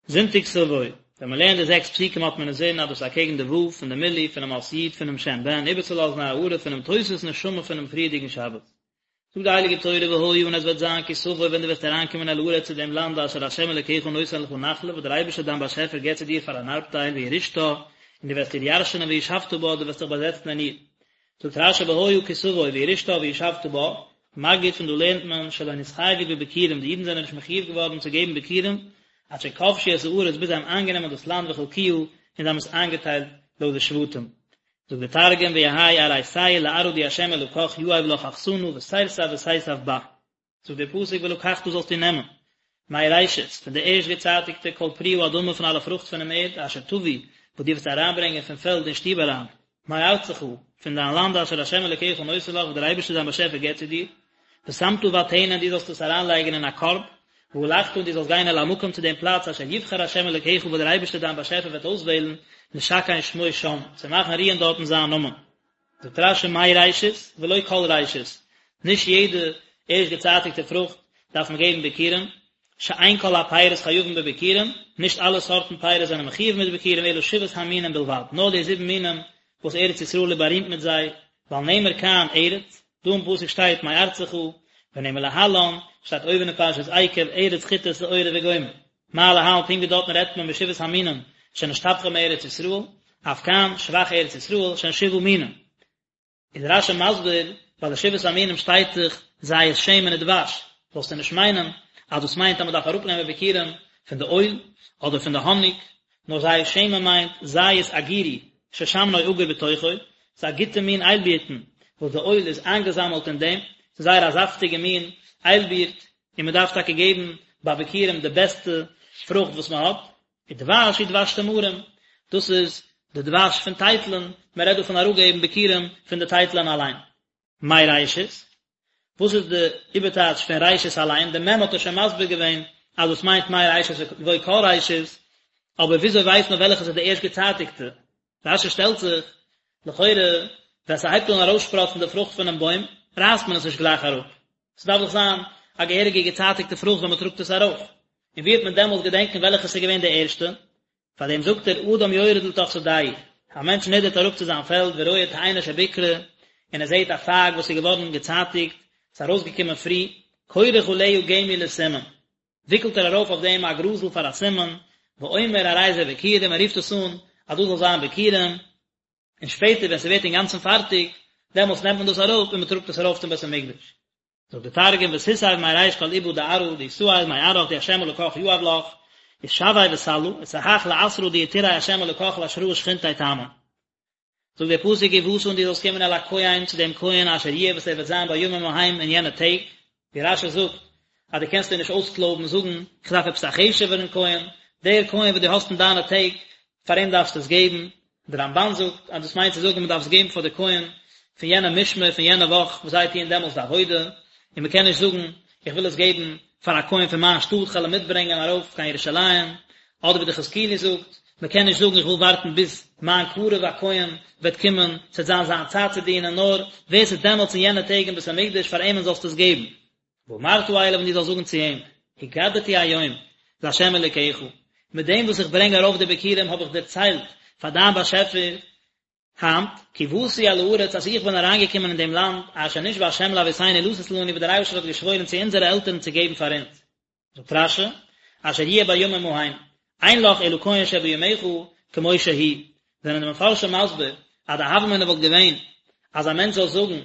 זונטאג תבוא, ווען מען לערנט די זעקס פסוקים האט מען אינזין אז דאס איז אקעגן די ו' פון די מילוי פונעם אות י' פונעם שם בן איבערצולאזן א הארה פונעם תוספות נשמה פונעם פריערדיגן שבת. זאגט די הייליגע תורה והיה און עס וועט זיין כי תבוא ווען דו וועסט אריינקומען אל הארץ צו דעם לאנד אשר ה' אלוקיך נותן לך נחלה וואס דער אייבערשטער דיין באשעפער גיבט צו דיר פאר אן ארבטייל וירשתה און דו וועסט איר ירשענען וישבת בה דו וועסט דיך באזעצן אין איר. זאגט רשי והיה כי תבוא וירשתה וישבת בה, מגיד פון דא לערנט מען שלא נתחייבו בביכורים די אידן זענען נישט מחויב געווארן צו געבן ביכורים עד שכבשו את הארץ ביז זיי האבן איינגענומען דאס לאנד וחלקוה און זיי האבן עס איינגעטיילט לויט די שבטים. זאגט דער תרגום ויהי אריתיה לארעא די ה' אלקך יהיב לך אחסנא ותירתב ותיתב בה. זאגט דער פסוק ולקחת זאלסטו נעמען מראשית, פון די ערשט געצייטיגטע כל פרי האדמה פון אלע פרוכט פונעם ערד, אשר תביא, וואס דו וועסט אריינברענגען פון פעלד אין שטוב אריין, מארצך, פון דיין לאנד אשר ה' אלוקיך נותן לך, וואס דער אייבערשטער דיין באשעפער געבט צו דיר, ושמת בטנא און דו זאלסט עס אריינלייגן אין א קארב, והלכת און דו זאלסט גיין אל המקום צו דעם פלאץ אשר יבחר ה' אלוקיך וואס דער אייבערשטער דיין באשעפער וועט אויסוועלן, לשכן שמו שם, צו מאכן רוען דארטן זיין נאמען. זאגט רשי מראשית ולא כל ראשית, נישט יעדע ערשט געצייטיגטע פרוכט דארף מען געבן ביכורים, שאין כל הפירות חייבין בביכורים, נישט אלע סארטן פירות זענען מחויב מיט ביכורים אלא שבעת המינים בלבד, נאר די זיבן מינים וואס ארץ ישראל איז בארימט מיט זיי, ווייל נאמר כאן ארץ, דא אין פסוק שטייט מארצך, ונאמר להלן, שטייט אויבן אין פרשת עקב, ארץ חיטה שעורה וגומר. מה להלן פונקט ווי דארטן רעדט מען משבעת המינים שנשתבחה מארץ ישראל, אף כאן שבח ארץ ישראל שהן שבעה מינים. איז רשי מסביר, ביי די שבעת המינים שטייט דאך זית שמן ודבש, זאלסטו נישט מיינען אז דאס מיינט אז מען דארף אראפנעמען ביכורים פון די אויל אדער פון די האניג, נאר זית שמן מיינט זית אגירי ששמנו אגור בתוכו, ס'איז א גוטע מין איילבירטן וואס די אויל איז איינגעזאמעלט אין דעם, ס'איז זייער א זאפטיגע מין איילבירט, און מען דארף טאקע געבן ביי ביכורים די בעסטע פרוכט וואס מען האט, ודבש הוא דבש תמרים, דאס איז די דבש פון טייטלען, מען רעדט דא פון אראפגעבן ביכורים פון די טייטלען אליין. מראשית, וואס איז די איבערטייטש פון ראשית אליין, די מ' האט ער שוין מסביר געווען אז דאס מיינט מראשית ולא כל ראשית, אבער וויאזוי ווייסט מען וועלכעס איז די ערשט געצייטיגטע? רשי שטעלט זיך, לכאורה ווען ס'הייבט אן ארויסשפראצן די פרוכט פונעם בוים, רייסט מען עס נישט גלייך אראפ, ס'דארף דאך זיין א געהעריגע געצייטיגטע פרוכט ווען מ'טראגט עס ארויף, און ווי וועט מען דעמאלס געדענקען וועלכעס איז געווען די ערשטע? פאר דעם זאגט ער אדם יורד לתוך שדהו, א מענטש נידערט אראפ צו זיין פעלד ורואה תאנה שביכרה, און ער זעט א פייג וואס איז געווארן געצייטיגט, ס'איז ארויסגעקומען פרי, כורך עליה גמי לסימן, וויקלט ער ארויף אויף דעם א גראזל פאר א סימן, ואומר הרי זה ביכורים, ער רופט עס אן אז דאס זאל זיין ביכורים, און שפעטער ווען ס'ווערט אינגאנצן פארטיג, דעמאלטס נעמט מען דאס אראפ און מ'טראגט עס ארויף צום בית המקדש. זאגט דער תרגום ותיסב מריש כל איבא דארעא די תאיל מארעך די ה' אלקך יהב לך, ותשוי בסלא, ותהך לאתרא די יתרעי ה' אלקך לאשראה שכינתיה תמן. זאגט דער פסוק ובאת און דו זאלסט קומען אל הכהן צו דעם כהן אשר יהיה וואס ער וועט זיין בימים ההם אין יענע טעג, ווי רשי זאגט אז דו קענסט דיר נישט אויסקלויבן זאגן איך דארף עפעס א חשוב'ערן כהן, דער כהן וואס דו האסט אין דיינע טעג פאר אים דארפסטו עס געבן, דער רמבן זאגט אז דאס מיינט צו זאגן מען דארף עס געבן פאר די כהן פון יענע משמר פון יענע וואך וואס זיי טוען דעמאלטס די עבודה, און מען קען נישט זאגן איך וויל עס געבן פאר א כהן פון מיין שטאט כ'על אים מיטברענגען ארויף קיין ירושלים, אדער ווי די חזקוני זאגט, מען קען נישט זאגן איך וויל ווארטן ביז מיין קרוב א כהן וועט קומען, ס'וועט זיין זיין צייט צו דינען, נאר ווער ס'איז דעמאלטס אין יענע טעג אין בית המקדש פאר אים'ן זאלסטו עס געבן. ואמרת אליו און דו זאלסט זאגן צו אים, הגדתי היום לה' אלוקיך, מיט דעם וואס איך ברענג ארויף די ביכורים האב איך דערציילט פאר דיין באשעפער היינט, כי באתי אל הארץ אז איך בין אריינגעקומען אין דעם לאנד, אשר נשבע ה' לאבותינו לתת לנו וואס דער אייבערשטער האט געשוואוירן צו אונזערע עלטערן צו געבן פאר אונז. זאגט רשי, אשר יהיה בימים ההם, אין לך אלא כהן שבימיך כמו שהוא, זענען די מפרשים מסביר אז די הוה אמינא וואלט געווען אז א מענטש זאל זאגן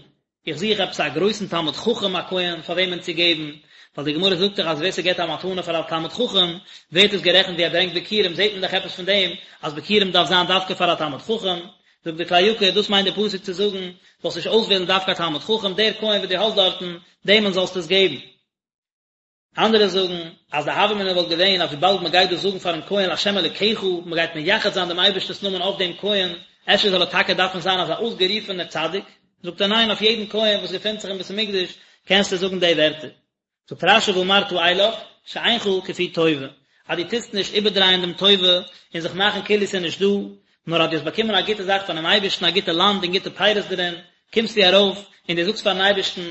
איך זוך עפעס א גרויסן תלמיד חכם א כהן פאר וועמען צו געבן, ווייל די גמרא זאגט דאך אז ווער ס'געבט א מתנה פאר א תלמיד חכם ווערט עס גערעכנט ווי ער ברענגט ביכורים, זעט מען דאך עפעס פון דעם אז ביכורים דארף זיין דווקא פאר א תלמיד חכם, זאגט די כלי יקר דאס מיינט די פסוק צו זאגן זאלסט נישט אויסוועלן דווקא א תלמיד חכם, דער כהן וואס דו האסט דארטן דעמען זאלסטו עס געבן. אנדערע זאגן אז די הוה אמינא וואלט געווען אז וויבאלד מען גייט דאס זאגן פארן כהן לה' אלוקיך, מען גייט מייחד זיין דעם אייבערשטענס נאמען אויף דעם כהן, אפשר זאל ער טאקע דארפן זיין אזא אויסגערופענער צדיק? זאגט ער ניין, אויף יעדן כהן וואס געפינט זיך אין בית המקדש קענסטו זאגן די ווערטער. זאגט רשי ואמרת אליו, שאינך כפוי טובה, אז דו טוסט נישט איבערדרייען דעם טובה און זיך מאכן כאילו ס'איז נישט דא, נאר אז דו האסט באקומען א גוטע זאך פונעם אייבערשטן, א גוטע לאנד און גוטע פירות דערין, קומסטו ארויף און דו זאגסט פארן אייבערשטן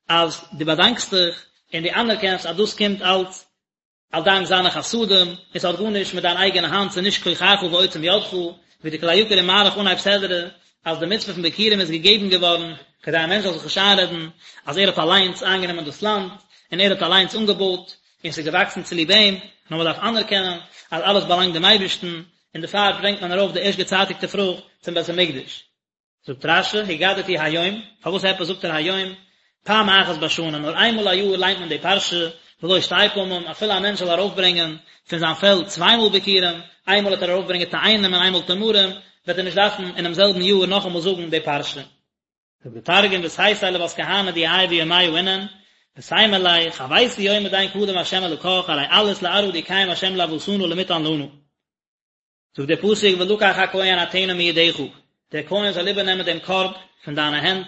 אז דו באדאנקסט דיך און דו אנערקענסט אז דאס קומט אלץ. א דאנק זיינע חסדים, און ס'האט גארנישט מיט דיין אייגענע האנט, ס'איז נישט כוחך ועוצם ידך, ווי די כלי יקר איז מאריך אנהייב סדרה, אז די מצוה פון ביכורים איז געגעבן געווארן, כדי א מענטש זאל זיך נישט איינרעדן אז ער האט אליינס איינגענומען דאס לאנד, און ער האט אליינס אנגעבויט, און ס'איז געוואקסן צוליב אים, נאר מ'דארף אנערקענען אז אלעס באלאנגט דעם אייבערשטן, און דערפאר ברענגט מען ארויף די ערשט געצייטיגטע פרוכט צום בית המקדש. זאגט רש"י, הגדתי היום, פארוואס עפעס זאגט ער היום? פעם אחת בשנה, נאר איינמאל א יאר ליינט מען די פרשה, ולא שתי פעמים, אפילו א מענטש זאל ארויפברענגען פון זיין פעלד צוויי מאל ביכורים, איינמאל וועט ער ארויפברענגען תאנים און איינמאל תמרים, וועט ער נישט דארפן אינעם זעלבן יאר נאכאמאל זאגן די פרשה. זאגט די תרגום, ותיתי לות כהנא די יהי ביומיא אינון, ותימר ליה, חויתו יומא דין קדם ה' אלקך, ארי עלית לארעא די קיים ה' לאבהתנא למטען לנא. זאגט דער פסוק ולקח הכהן הטנא מידך, דער כהן זאל איבערנעמען דעם קארב פון דיינע הענט,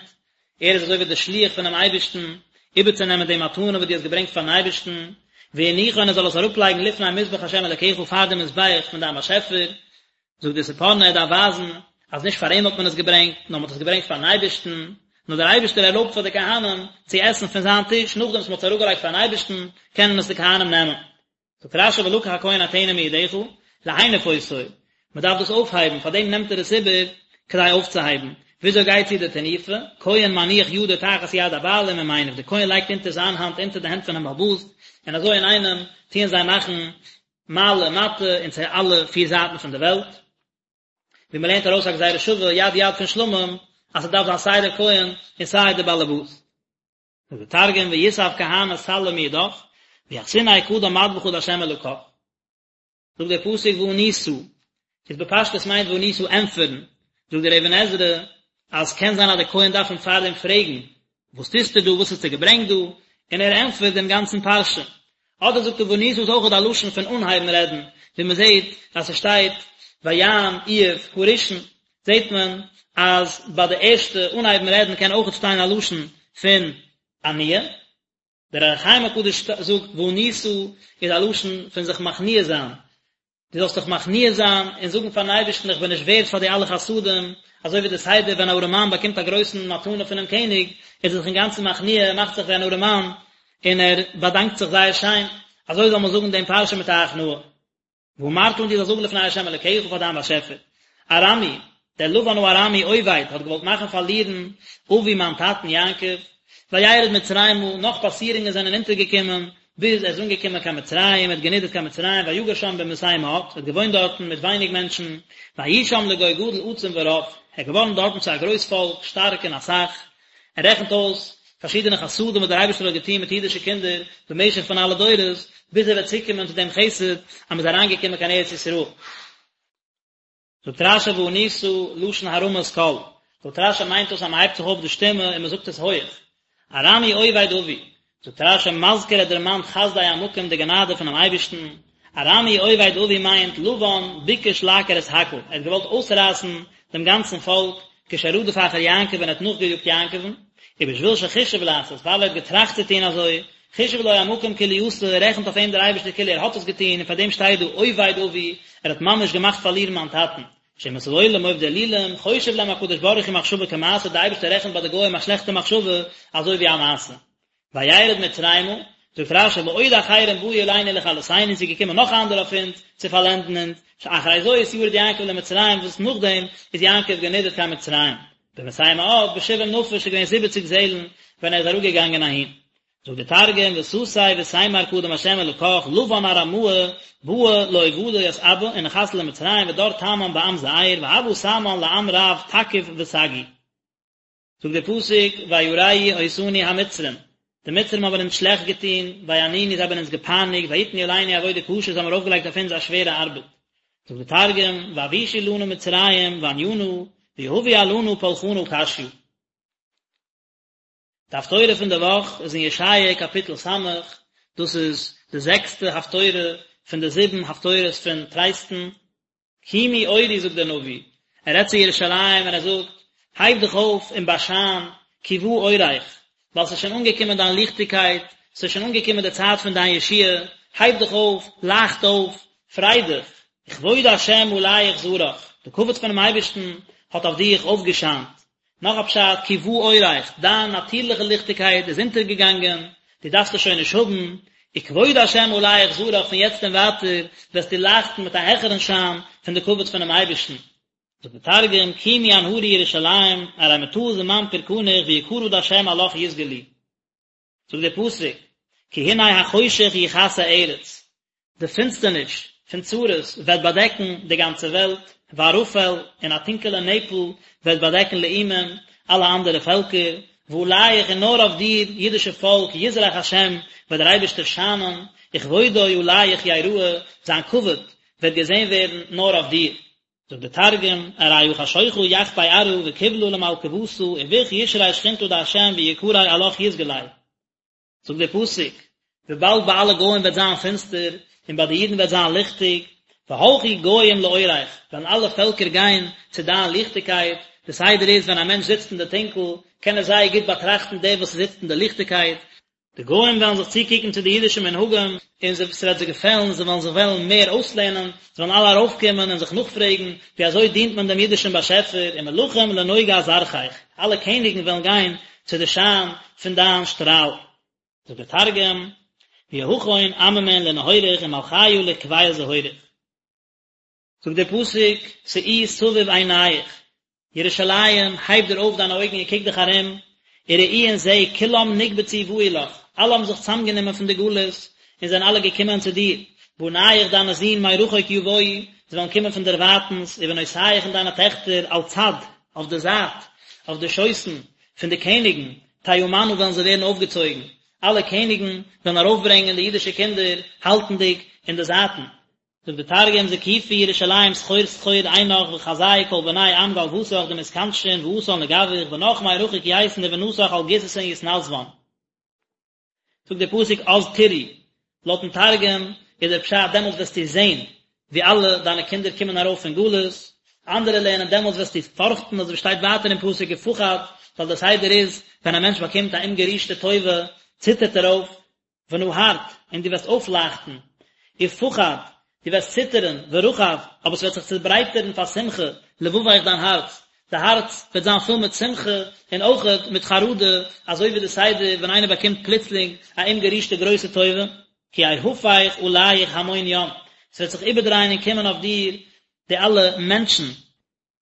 ער איז אזוי ווי דער שליח פונעם אייבערשטן, איבערצונעמען די מתנה וואס דו האסט געברענגט פארן אייבערשטן, והניחו און ער זאל עס אראפלייגן לפני מזבח ה' אלוקיך פאר דעם מזבח פון דיין באשעפער, זאגט דער ספורנו ער דארף ווייזן אז נישט פאר אים האט מען עס געברענגט, נאר מען האט עס געברענגט פארן אייבערשטן, נאר דער אייבערשטער ערלויבט פאר די כהנים צו עסן פון זיין טיש, נאכדעם וואס מען האט עס אראפגעלייגט פארן אייבערשטן, קענען עס די כהנים נעמען. זאגט רש"י ולקח הכהן הטנא מידך, להניף אותו, מען דארף דאס אויפהייבן, פאר דעם נעמט ער עס איבער כדי אויפצוהייבן, וויאזוי גייט צו די תנופה, כהן מניח ידו תחת יד הבעלים ומניף, דער כהן לייגט אונטער זיין האנט אונטער די הענט פונעם בעל הבית, און אזוי אינאיינעם טוען זיי מאכן מעלה מטה און צו אלע פיר זייטן פון די וועלט, ווי מען לערנט ארויס א גזירה שווה יד יד פון שלמים, אז ס'דארף זיין סיי דער כהן און סיי דער בעל הבית. זאגט דער תרגום ויסב כהנא סלא מידך ויחתיניה קדם מדבחא דהשם אלקך. זאגט דער פסוק וענית, איז בפשטות מיינט וענית ענטפערן, זאגט דער אבן עזרא אז קען זיין אז דער כהן דארף אים פארדעם פרעגן וואס טוסטו דא, וואס האסטו געברענגט דא, און ער ענטפערט דעם גאנצן פרשה. אדער זאגט ער וענית איז אויכעט א לשון פון אנהייבן רעדן, ווי מען זעט אז ס'שטייט ויען איוב הראשון, זעט מען אז ביי די ערשטע אנהייבן רעדן קען אויכעט שטיין א לשון פון עניה. דער אור החיים הקדוש זאגט וענית איז א לשון פון זיך מכניע זיין, דו זאלסט דיך מכניע זיין און זאגן פארן אייבערשטן איך בין נישט ווערד פאר די אלע חסדים, אזוי ווי די סדר ווען א ארעמאן באקומט א גרויסן מתנה פונעם קעניג, איז ער זיך אינגאנצן מכניע, ער מאכט זיך ווי אן ארעמאן, און ער באדאנקט זיך זייער שיין, אזוי זאל מען זאגן דעם פרשה מיט א הכנעה. ואמרת און דו זאלסט זאגן לפני ה' אלוקיך פאר דיין באשעפער, ארמי, דער לבן הארמי אובד האט געוואלט מאכן פארלירן אבי מיין טאטן יעקב, וירד מצרימה, נאך פאסירונגען זענען אונטערגעקומען, ביז ער איז אנגעקומען קיין מצרים, ער האט גענידערט קיין מצרים, ויגר שם במתי מעט, ער האט געוואוינט דארטן מיט ווייניג מענטשן, ויהי שם לגוי גדול עצום ורב, ער איז געווארן דארטן צו א גרויס פאלק, שטארק און אסאך, ער רעכנט אויס פארשידענע חסדים וואס דער אייבערשטער האט געטון מיט אידישע קינדער במשך פון אלע דורות, ביז ער וועט צוקומען צו דעם חסד אז מען איז אריינגעקומען קיין ארץ ישראל. זאגט רש"י וענית לשון הרמת קול, זאגט רש"י מיינט דאס אז מען הייבט זיך אויף די שטימע און מען זאגט עס הויעך, ארמי אובד אבי, זאגט רש"י מזכיר ער דערמאנט חסדי המקום די גענאדע פונעם אייבערשטן, ארמי אובד אבי מיינט לבן ביקש לעקור את הכל, ער האט געוואלט אויסרייסן דעם גאנצן פאלק, כשרדף אחר יעקב ווען ער האט נאכגעיאגט יעקב'ן, ובשביל שחישב לעשות, ווייל ער האט געטראכט צו טון אזוי, חישב לו המקום כאילו עשה, רעכנט אויף אים דער אייבערשטער כאילו ער האט עס געטון, און פאר דעם שטייט דא אובד אבי, ער האט ממש געמאכט פארלירן מיין טאטן. שאומות העולם עובדי אלילים, חושב להם הקדוש ברוך הוא מחשבה כמעשה, דער אייבערשטער רעכנט ביי די גוים א שלעכטע מחשבה אזוי ווי א מעשה. וירד מצרימה, זאגט רש"י ועוד אחרים באו עלינו לכלותינו, ס'איז געקומען נאך אנדערע אויף אונז צו פארלענדן אונז, שאחרי זאת ירד יעקב למצרים וואס נאכדעם איז יעקב גענידערט קיין מצרים, במתי מעט בשבעים נפש איז געווען זיבעציג זעלן ווען ער איז אראפגעגאנגען אהין. זאגט דער תרגום ותתי ותימר קדם ה' אלקך לבן ארמאה בעא לאובדא ית אבא ונחת למצרים ודר תמן בעם זעיר והוה תמן לעם רב תקיף וסגי. זאגט דער פסוק וירעו אותנו המצרים, די מצרים האבן אונז שלעכט געטון, ויענונו זיי האבן אונז געפייניגט, ויתנו עלינו עבודה קשה זיי האבן ארויפגעלייגט אויף אונז א שווערע ארבעט. זאגט דער תרגום ואבישו לנא מצרים ועניינא ויהבו עלנא פולחנא קשיא. די הפטורה פון די וואך איז אין ישעיה קאפיטל ס', דאס איז די זעקסטע הפטורה פון די זיבן הפטורות פון טרייסטן. קומי אורי זאגט דער נביא, ער רעדט צו ירושלים און ער זאגט, הייב דיך אויף און באשיין, כי בא אורך, ווייל ס'איז שוין אנגעקומען דיין ליכטיגקייט, ס'איז שוין אנגעקומען די צייט פון דיין ישועה, הייב דיך אויף, לייכט אויף, פריי דיך, וכבוד השם עליך זרח, די כבוד פונעם אייבערשטן האט אויף דיך אויפגעשיינט. נאך א פשט, כי בא אורך, דיין נאטירליכע ליכטיגקייט איז אונטערגעגאנגען, דו דארפסט עס שוין נישט האבן, וכבוד השם עליך זרח פון יעצט און ווייטער וועסטו לייכטן מיט א העכערן שיין פון די כבוד פונעם אייבערשטן. זאגט דער תרגום, קימי אנהרי ירושלים, ארי מטא זמן פורקניך ויקרא דהשם עלך יתגלי. זאגט דער פסוק, כי הנה החושך יכסה ארץ, די פינסטערניש פון צרות וועט באדעקן די גאנצע וועלט, וערפל, און א טונקעלע נעפל וועט באדעקן לאומים, אלע אנדערע פעלקער, ועליך און נאר אויף דיר, אידישע פאלק, יזרח השם, וועט דער אייבערשטער שיינען, וכבודו עליך יראה, זיין כבוד וועט געזען ווערן נאר אויף דיר. זאגט דער תרגום, ארי הא חשוכא יחפי ארעא וקבלא למלכוותא וביך ישרי שכינתא דהשם ויקריה עלך יתגלי. זאגט דער פסוק, וויבאלד ביי אלע גוים וועט זיין פינסטער און ביי די אידן וועט זיין ליכטיג, והלכו גוים לאורך, וועלן אלע פעלקער גיין צו דיין ליכטיגקייט, די סדר איז ווען א מענטש זיצט אין די טונקל, קען ער זייער גוט באטראכטן דעם וואס זיצט אין די ליכטיגקייט, די גוים וועלן זיך צוקוקן צו די אידישע מנהגים, און זיי, ס'וועט זיי געפעלן, זיי וועלן זיך וועלן מער אויסלערנען, זיי וועלן אלע ארויפקומען און זיך נאכפרעגן, ווי אזוי דינט מען דעם אידישן באשעפער, ומלכים לנוגה זרחך, אלע קעניגן וועלן גיין צו די שיין פון דיין שטראל. זאגט דער תרגום, ויהכון עממין לנהוריך ומלכיא לקביל זהוריך. זאגט דער פסוק, שאי סביב עיניך, ירושלים, הייב דיר אויף דיינע אויגן און קוק דיך ארום, וראי און זע, כולם נקבצו באו לך, אלע האבן זיך צוזאמגענומען פון די גלות, און זענען אלע געקומען צו דיר, בניך דיינע זין מרחוק יבואו, זיי וועלן קומען פון דערווייטנס, ובנותיך און דיינע טעכטער, על צד, אויף די זייט, אויף די שויסן, פון די קעניגן, תאמנה וועלן זיי ווערן אויפגעצויגן, אלע קעניגן וועלן ארויפברענגען די אידישע קינדער, האלטנדיג אין די זייטן. זאגט די תרגום זקיפי ירושלים סחור סחור עינך וחזי כל בני עם גלוותך דמתכנשין ואתאן לגווך בנך מרחוק ייתון ובנתך על גיססין יתנסבן. זאגט דער פסוק אז תראי, לויטן תרגום איז דער פשט דעמאלטס וועסטו זען ווי אלע דיינע קינדער קומען ארויף פון גלות, אנדערע לערנען דעמאלטס וועסטו פארכטן אזוי ווי שטייט ווייטער אין פסוק ופחד, ווייל דער סדר איז ווען א מענטש באקומט א אומגערישטע טובה ציטערט ער אויף, ונהרת, און דו וועסט אויפלייכטן, ופחד, דו וועסט ציטערן, ורחב, אבער ס'וועט זיך צעברייטערן פאר שמחה, לבבך דיין הארץ, די הארץ וועט זיין פול מיט שמחה, און אויכעט מיט חרדה, אזוי ווי די סדר ווען איינער באקומט פלוצלינג א אומגערישטע גרויסע טובה, כי יהפך עליך המון ים, ס'וועט זיך איבערדרייען און קומען אויף דיר די אלע מענטשן,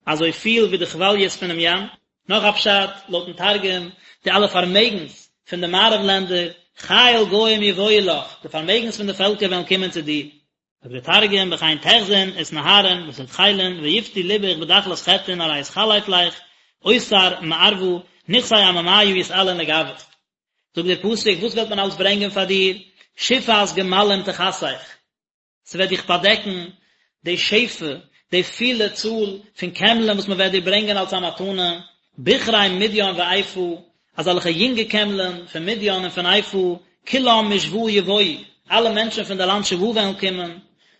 אזוי פיל ווי די כוואליעס פונעם ים. נאך א פשט, לויטן תרגום, די אלע פארמעגנס פון די מערב לענדער, חיל גוים יבואו לך, די פארמעגנס פון די פעלקער וועלן קומען צו דיר. זאגט דער תרגום, בכן תחזון ותנהרין ותדחילין ויפתי לבך בדחלת חטין ארי יתחלף לך אוצר מערבא נכסי עממיא יתעלון לגוך. זאגט דער פסוק, וואס וועט מען אלס ברענגען פאר דיר? שפעת גמלים תכסך. ס'וועט דיך באדעקן די שפע, די פילע צאל פון קעמלען וואס מ'וועט דיר ברענגען אלס א מתנה, בכרי מדין ועיפה, אזעלכע יונגע קעמלען פון מדין און פון עיפה, כולם משבא יבואו, אלע מענטשן פון די לאנד שבא וועלן קומען,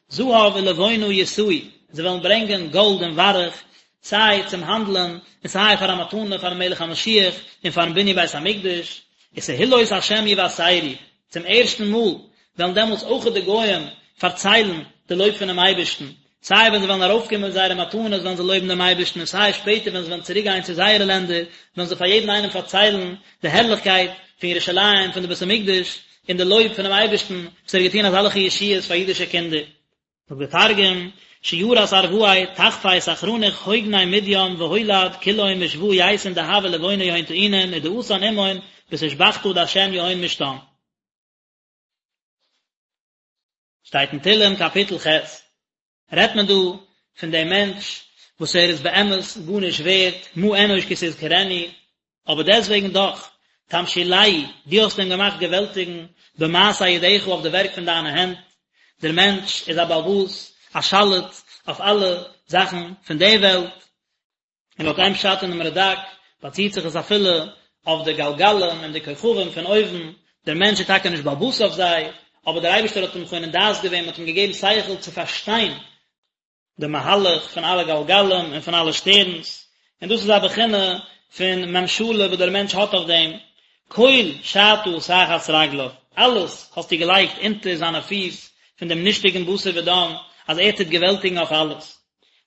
זהב ולבונה ישאו, זיי וועלן ברענגען גאלד און וויירעך, סיי צום האנדלען און סיי פאר א מתנה פארן מלך המשיח און פארן בנין בית המקדש, ותהלות השם יבשרו, צום ערשטן מאל וועלן דעמאלטס אויכעט די גויים פארציילן די לויב פונעם אייבערשטן, סיי ווען זיי וועלן ארויפקומען מיט זייערע מתנות וועלן זיי לויבן דעם אייבערשטן און סיי שפעטער ווען זיי וועלן צוריק גיין צו זייערע לענדער וועלן זיי פאר יעדן איינעם פארציילן די הערליכקייט פון ירושלים, פון די בית המקדש, און די לויב פונעם אייבערשטן וואס ער האט געטון אזעלכע ישועות פאר אידישע קינדער. זאגט דער תרגום, שירת ערואי תחפי סחרניך הוגני מדין והולד כולהון משבא ייתון דהבא ולבונא יהון טעינין ודאתן עמהון בתושבחתא דהשם יהון משתן. שטייט אין תהלים קאפיטל ח', רעדט מען דא פון דעם מענטש וואס ער איז באמת גארנישט ווערט, מה אנוש כי תזכרנו, אבער דעסטוועגן דאך, תמשילהו, דו האסט אים געמאכט געוועלטיגן, במעשה ידיך אויף די ווערק פון דיינע הענט, דער מענטש איז א בעל הבית, א שליט אויף אלע זאכן פון די וועלט, און לויט איין פשט אינעם רד"ק באציט זיך עס אפילו אויף די גלגלים און די כוכבים פון אויבן, דער מענטש איז טאקע נישט בעל הבית אויף זיי, אבער דער אייבערשטער האט אים חונן דעת געווען, מען האט אים געגעבן שכל צו פארשטיין די מהלך פון אלע גלגלים און פון אלע שטערנס, און דאס איז א בחינה פון ממשלה וואס דער מענטש האט אויף דעם, כל שתה תחת רגליו, אלעס האסטו געלייגט אונטער זיינע פיס פון דעם נישטיגן בשר ודם, אז ער טוט געוועלטיגן אויף אלעס.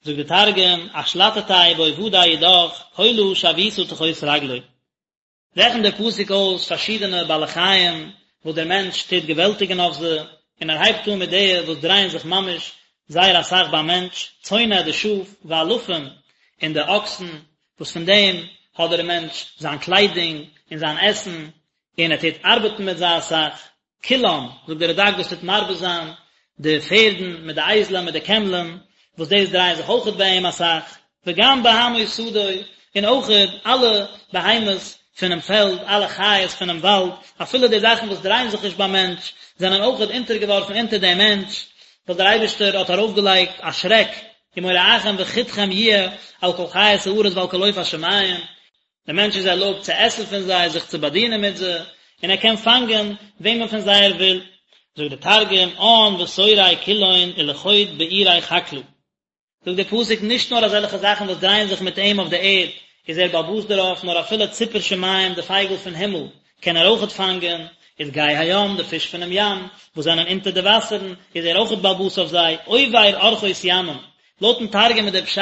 זאגט דער תרגום, אשלטתיה בעובדי ידך, כלא שויתא תחות רגלוי. רעכנט דער פסוק אויס פארשידענע בעלי חיים וואס דער מענטש טוט געוועלטיגן אויף זיי, און ער הייבט אן מיט די וואס דרייען זיך ממש זייער אסאך ביים מענטש, צאנה די שאף, ואלפים, און די אקסן, וואס פון דעם האט דער מענטש זיין קליידונג און זיין עסן, און ער טוט ארבעטן מיט זיי אסאך. כולם, זאגט דער רד"ק דאס טוט מרבה זיין די פערדן מיט די אייזלען מיט די קעמלען, וואס דאס דרייען זיך אויכעט ביי אים אסאך, וגם בהמות שדי, און אויכעט אלע בהמות פונעם פעלד, אלע חיות פונעם וואלד, אפילו די זאכן וואס דרייען זיך נישט ביים מענטש, זענען אויכעט אונטערגעווארפן אונטער דעם מענטש, ווייל דער אייבערשטער האט ארויפגעלייגט א שרעק, ומוראכם וחתכם יהיה על כל חית הארץ ועל כל עוף השמים, דער מענטש איז ערלויבט צו עסן פון זיי, זיך צו באדינען מיט זיי, און ער קען פאנגען וועמען פון זיי ער וויל. זאגט דער תרגום, עאן ותורי כולהון ולחוד בעירי חקלא. זאגט דער פסוק, נישט נאר אזעלכע זאכן וואס דרייען זיך מיט אים אויף דער ערד איז ער בעל הבית דערויף, נאר אפילו ציפור שמים, די פייגל פון הימל, קען ער אויכעט פאנגען, ודגי הים, די פיש פונעם ים, וואס זענען אונטער די וואסערן, איז ער אויכעט בעל הבית אויף זיי, עובר ארחות ימים. לויטן תרגום איז דער פשט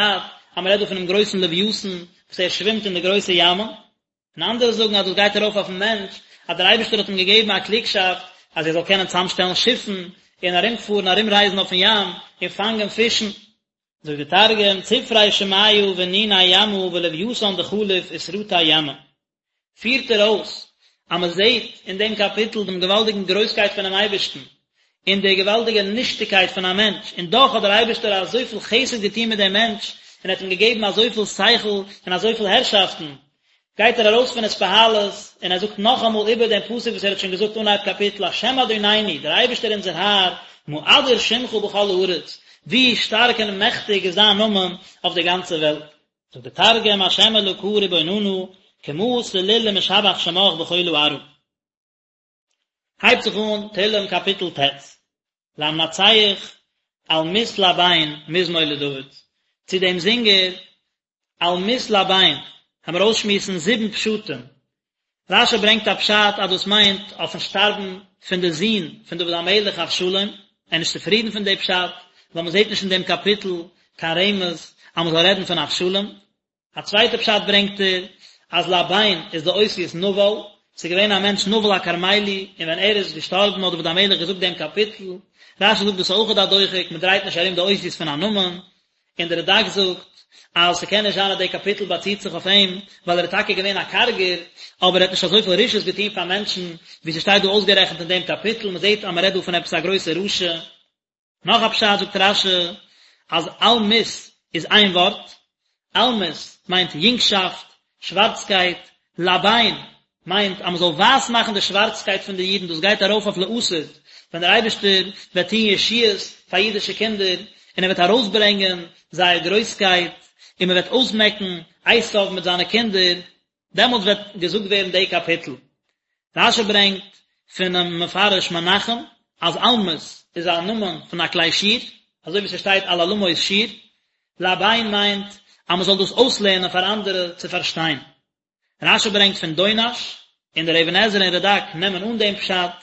אז מען רעדט דא פונעם גרויסן לוויתן וואס ער שווימט אין די גרויסע ימ'ן, און אנדערע זאגן אז דאס גייט ארויף אויפן מענטש, אז דער אייבערשטער האט אים געגעבן א קלוגשאפט אז ער זאל קענען צוזאמשטעלן שיפן און ארומפארן ארומרייזן אויפן ים און פאנגען פישן. זאגט דער תרגום, צפרי שמיא ונוני ימא ולויתן דחליף וסרטי ימא. פירט ער אויס אז מען זעט אין דעם קאפיטל דעם געוואלדיגן גרויסקייט פונעם אייבערשטן, און די געוואלדיגע נישטיגקייט פון א מענטש, און דאך האט דער אייבערשטער אזויפיל חסד געטון מיט דעם מענטש, און האט אים געגעבן אזויפיל שכל און אזויפיל הערשאפטן, גייט ער ארויס פון התפעלות, און ער זאגט נאכאמאל איבער דעם פסוק וואס ער האט שוין געזאגט אנהייב קאפיטל, השם אדונינו, דער אייבערשטער אונזער האר, מה אדיר שמך בכל הארץ, ווי שטארק און מעכטיג איז דיין נאמען אויף דער גאנצער וועלט. זאגט דער תרגום, השם אלקא רבוננא, כמה סליל ומשבח שמך בכלא ארעא. הייבט זיך אן תהלים קאפיטל ט', למנצח אלמות לבן מזמור לדוד, צו דעם זינגער אלמות לבן, העמיר אויסשמועסן זיבן פשטים, רש"י ברענגט א פשט אז דאס מיינט אויפן שטארבן פון די זון פון דוד המלך אבשלום, ער איז נישט צופרידן פון די פשט, ווייל מען זעט נישט אין דעם קאפיטל קיין רמז אז מען זאל רעדן פון אבשלום. א צווייטע פשט ברענגט ער אז לבן איז די אותיות נבל, ס'איז געווען א מענטש נבל הכרמלי און ווען ער איז געשטארבן האט דוד המלך געזאגט דעם קאפיטל, רש"י זאגט דאס איז אויכעט א דוחק, מען דרייט נישט ארום די אותיות פון א נאמען, און דער רד"ק זאגט אז ס'קען נישט זיין אז דער קאפיטל באציט זיך אויף אים, ווייל ער איז טאקע געווען א קארגער, אבער ער האט נישט אזויפיל רשעות געטון פאר מענטשן, ווי ס'שטייט דא אויסגערעכנט אין דעם קאפיטל, מ'זעט אז מ'רעדט דא פון עפעס א גרויסע רשע. נאך א פשט זאגט רש"י אז אלמות איז איין ווארט, אלמות מיינט יונגשאפט, שווארצקייט, לבן מיינט אז מען זאל ווייס מאכן די שווארצקייט פון די אידן, דאס גייט ארויף אויף לעתיד, ווען דער אייבערשטער וועט טון ישועות פאר אידישע קינדער, און ער וועט ארויסברענגען זייער גרויסקייט, און מען וועט אויסמעקן עשיו מיט זיינע קינדער, דעמאלטס וועט געזאגט ווערן די קאפיטל. רש"י ברענגט פונעם מפרש מנחם אז אלמות איז א נאמען פון א כלי שיר, אזוי ווי ס'שטייט על אלמות שיר, לבן מיינט אז מען זאל דאס אויסלערנען פאר אנדערע צו פארשטיין. רש"י ברענגט פון דונש, און דער אבן עזרא און רד"ק נעמען אן דעם פשט,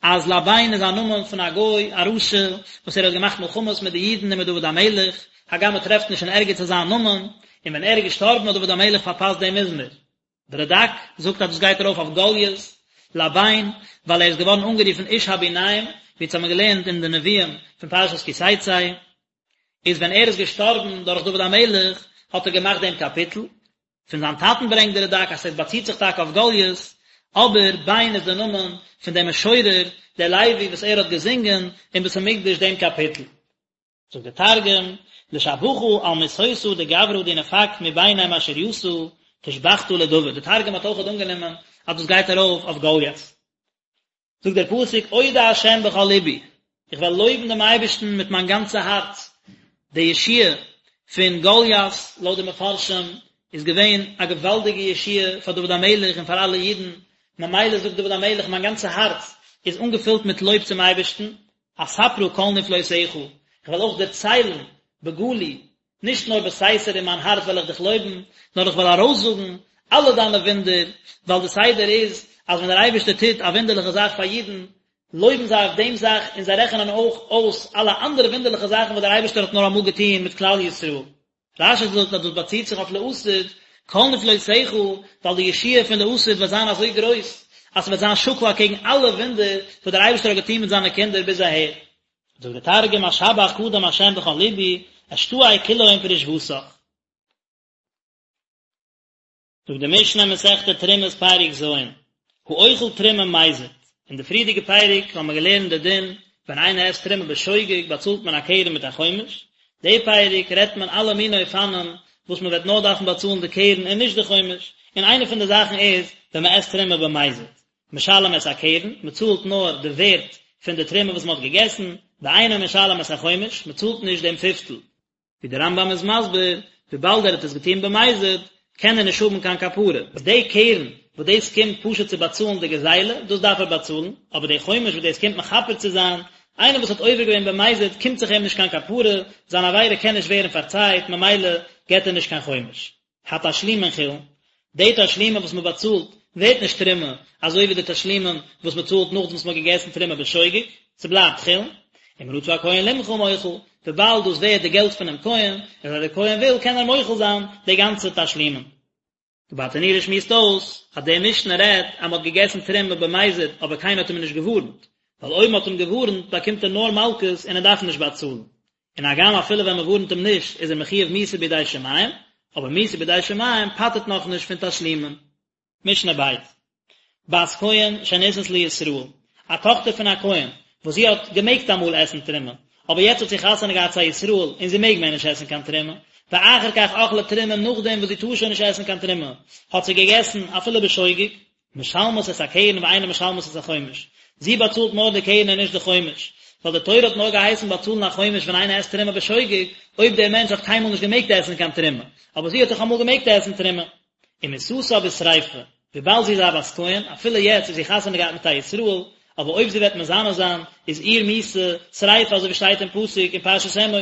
אז לבן איז א נאמען פון א גוי, א רשע, וואס ער האט געמאכט מלחמות מיט די אידן און מיט דוד המלך, הגם מען טרעפט נישט אין ערגעץ אזא נאמען, און ווען ער איז געשטארבן האט דוד המלך פארפאסט דעם מזמור. דער רד"ק זאגט אז דאס גייט ארויף אויף גלית, לבן, ווייל ער איז געווארן אנגערופן איש הביניים, ווי אונז האבן געלערנט אין די נביאים פון פרשת כי תצא, איז ווען ער איז געשטארבן דורך דוד המלך האט ער געמאכט דעם קאפיטל, פון זיין טאטן ברענגט דער רד"ק אז עס באציט זיך טאקע אויף גלית, אבער בן איז דער נאמען פון דעם משורר דער לוי וואס ער האט געזינגען אין בית המקדש דעם קאפיטל. זאגט דער תרגום, לשבחא על מיתותא דגברא די נפק מביני משריתא תושבחתא לדוד, דער תרגום האט אויכעט אנגענומען אז דאס גייט ארויף אויף גלית. זאגט דער פסוק אודה השם בכל לבי, איך וועל לויבן דעם אייבערשטן מיט מיין גאנצע הארץ, די ישועה פון גלית לויט די מפרשים איז געווען א געוואלדיגע ישועה פאר דוד המלך און פאר אלע אידן, ממילא זאגט דוד המלך מיין גאנצע הארץ איז אנגעפילט מיט לויב צום אייבערשטן, אספרה כל נפלאותיך, איך וועל אויך דערציילן בגלוי נישט נאר בסתר אין מיין הארץ וועל איך דיך לויבן, נאר איך וועל ארויסזאגן אלע דיינע וואונדער, ווייל די סדר איז אז ווען דער אייבערשטער טוט א וואונדערליכע זאך פאר אידן, לויבן זיי אויף דעם זאך און זיי רעכענען אויך אויס אלע אנדערע וואונדערליכע זאכן וואס דער אייבערשטער האט נאר אמאל געטון מיט כלל ישראל. רש"י זאגט אז דאס באציט זיך אויף לעתיד, כל נפלאותיך, ווייל די ישועה פון לעתיד וועט זיין אזוי גרויס, אז ס'וועט זיין שקול אקעגן אלע וואונדער וואס דער אייבערשטער האט געטון מיט זיינע קינדער ביז אהער. זאגט דער תרגום אשבח קדם השם בכל לבי, אשתעי כולהון פרישותך. זאגט די משנה אין מסכת תרומות פרק ז', האוכל תרומה מזיד, אין די פריערדיגע פרק האבן מיר געלערנט די דין ווען איינער עסט תרומה בשוגג באצאלט מען א קרן מיט א חומש, די פרק רעדט מען אלע מיני אופנים וואס מען וועט נאר דארפן באצאלן די קרן און נישט די חומש, און איינע פון די זאכן איז ווען מען עסט תרומה במזיד, משלם את הקרן, מען צאלט נאר די ווערט פון די תרומה וואס מען האט געגעסן, ואינו משלם את החומש, מען צאלט נישט דעם פיפטל. ווי דער רמב"ם איז מסביר, וויבאלד ער האט עס געטון במזיד, קען ער נישט האבן קיין כפרה. די קרן וואס דאס קומט פשוט צו באצאלן די גזילה, דאס דארף ער באצאלן, אבער די חומש וואס דאס קומט מכפר צו זיין, איינער וואס האט עובר געווען במזיד קומט זיך אים נישט קיין כפרה, זיין עבירה קען נישט ווערן פארצייט, ממילא געט ער נישט קיין חומש. התשלומין חולין, די תשלומין וואס מען באצאלט ווערט נישט תרומה, אזוי ווי די תשלומין וואס מען צאלט נאכדעם וואס מען האט געגעסן תרומה בשוגג, ס'בלייבט חולין, אם רצה הכהן למחול מוחל, וויבאלד דאס ווערט די געלט פונעם כהן, און אז דער כהן וויל קען ער מוחל זיין די גאנצע תשלומין. די ברטנורא שמועסט אויס אז די משנה רעדט אז מען האט געגעסן תרומה במזיד אבער קיינער האט אים נישט געווארנט, ווייל אויב מען האט אים געווארנט באקומט ער נאר מלקות און ער דארף נישט באצאלן, און הגם אפילו ווען מען ווארנט אים נישט איז ער מחויב מיתה בידי שמים, אבער מיתה בידי שמים פטר'ט נאכנישט פון תשלומין. משנה ב', בת כהן שנישאת לישראל, א טאכטער פון א כהן, וואס זי האט געמעגט אמאל עסן תרומה, אבער יעצט האט זי חתונה געהאט צו א ישראל און זי מעג מער נישט עסן קיין תרומה, ואחר כך אכלה תרומה נאכדעם וואס זי טאר שוין נישט עסן קיין תרומה, האט זי געגעסן אפילו בשוגג, משלמת את הקרן ואינה משלמת את החומש, זי באצאלט נאר די קרן און נישט די חומש, ווייל די תורה האט נאר געהייסן באצאלן א חומש ווען איינער עסט תרומה בשוגג, אויב דער מענטש האט קיינמאל נישט געמעגט עסן קיין תרומה, אבער זי האט דאך אמאל געמעגט עסן תרומה. ומיתתה בשריפה, וויבאלד זי איז א בת כהן, אפילו יעצט איז זי חתונה געהאט מיט א ישראל, אבער אויב זי וועט מזנה זיין, איז איר מיתה שריפה אזוי ווי שטייט אין פסוק אין פרשת אמור.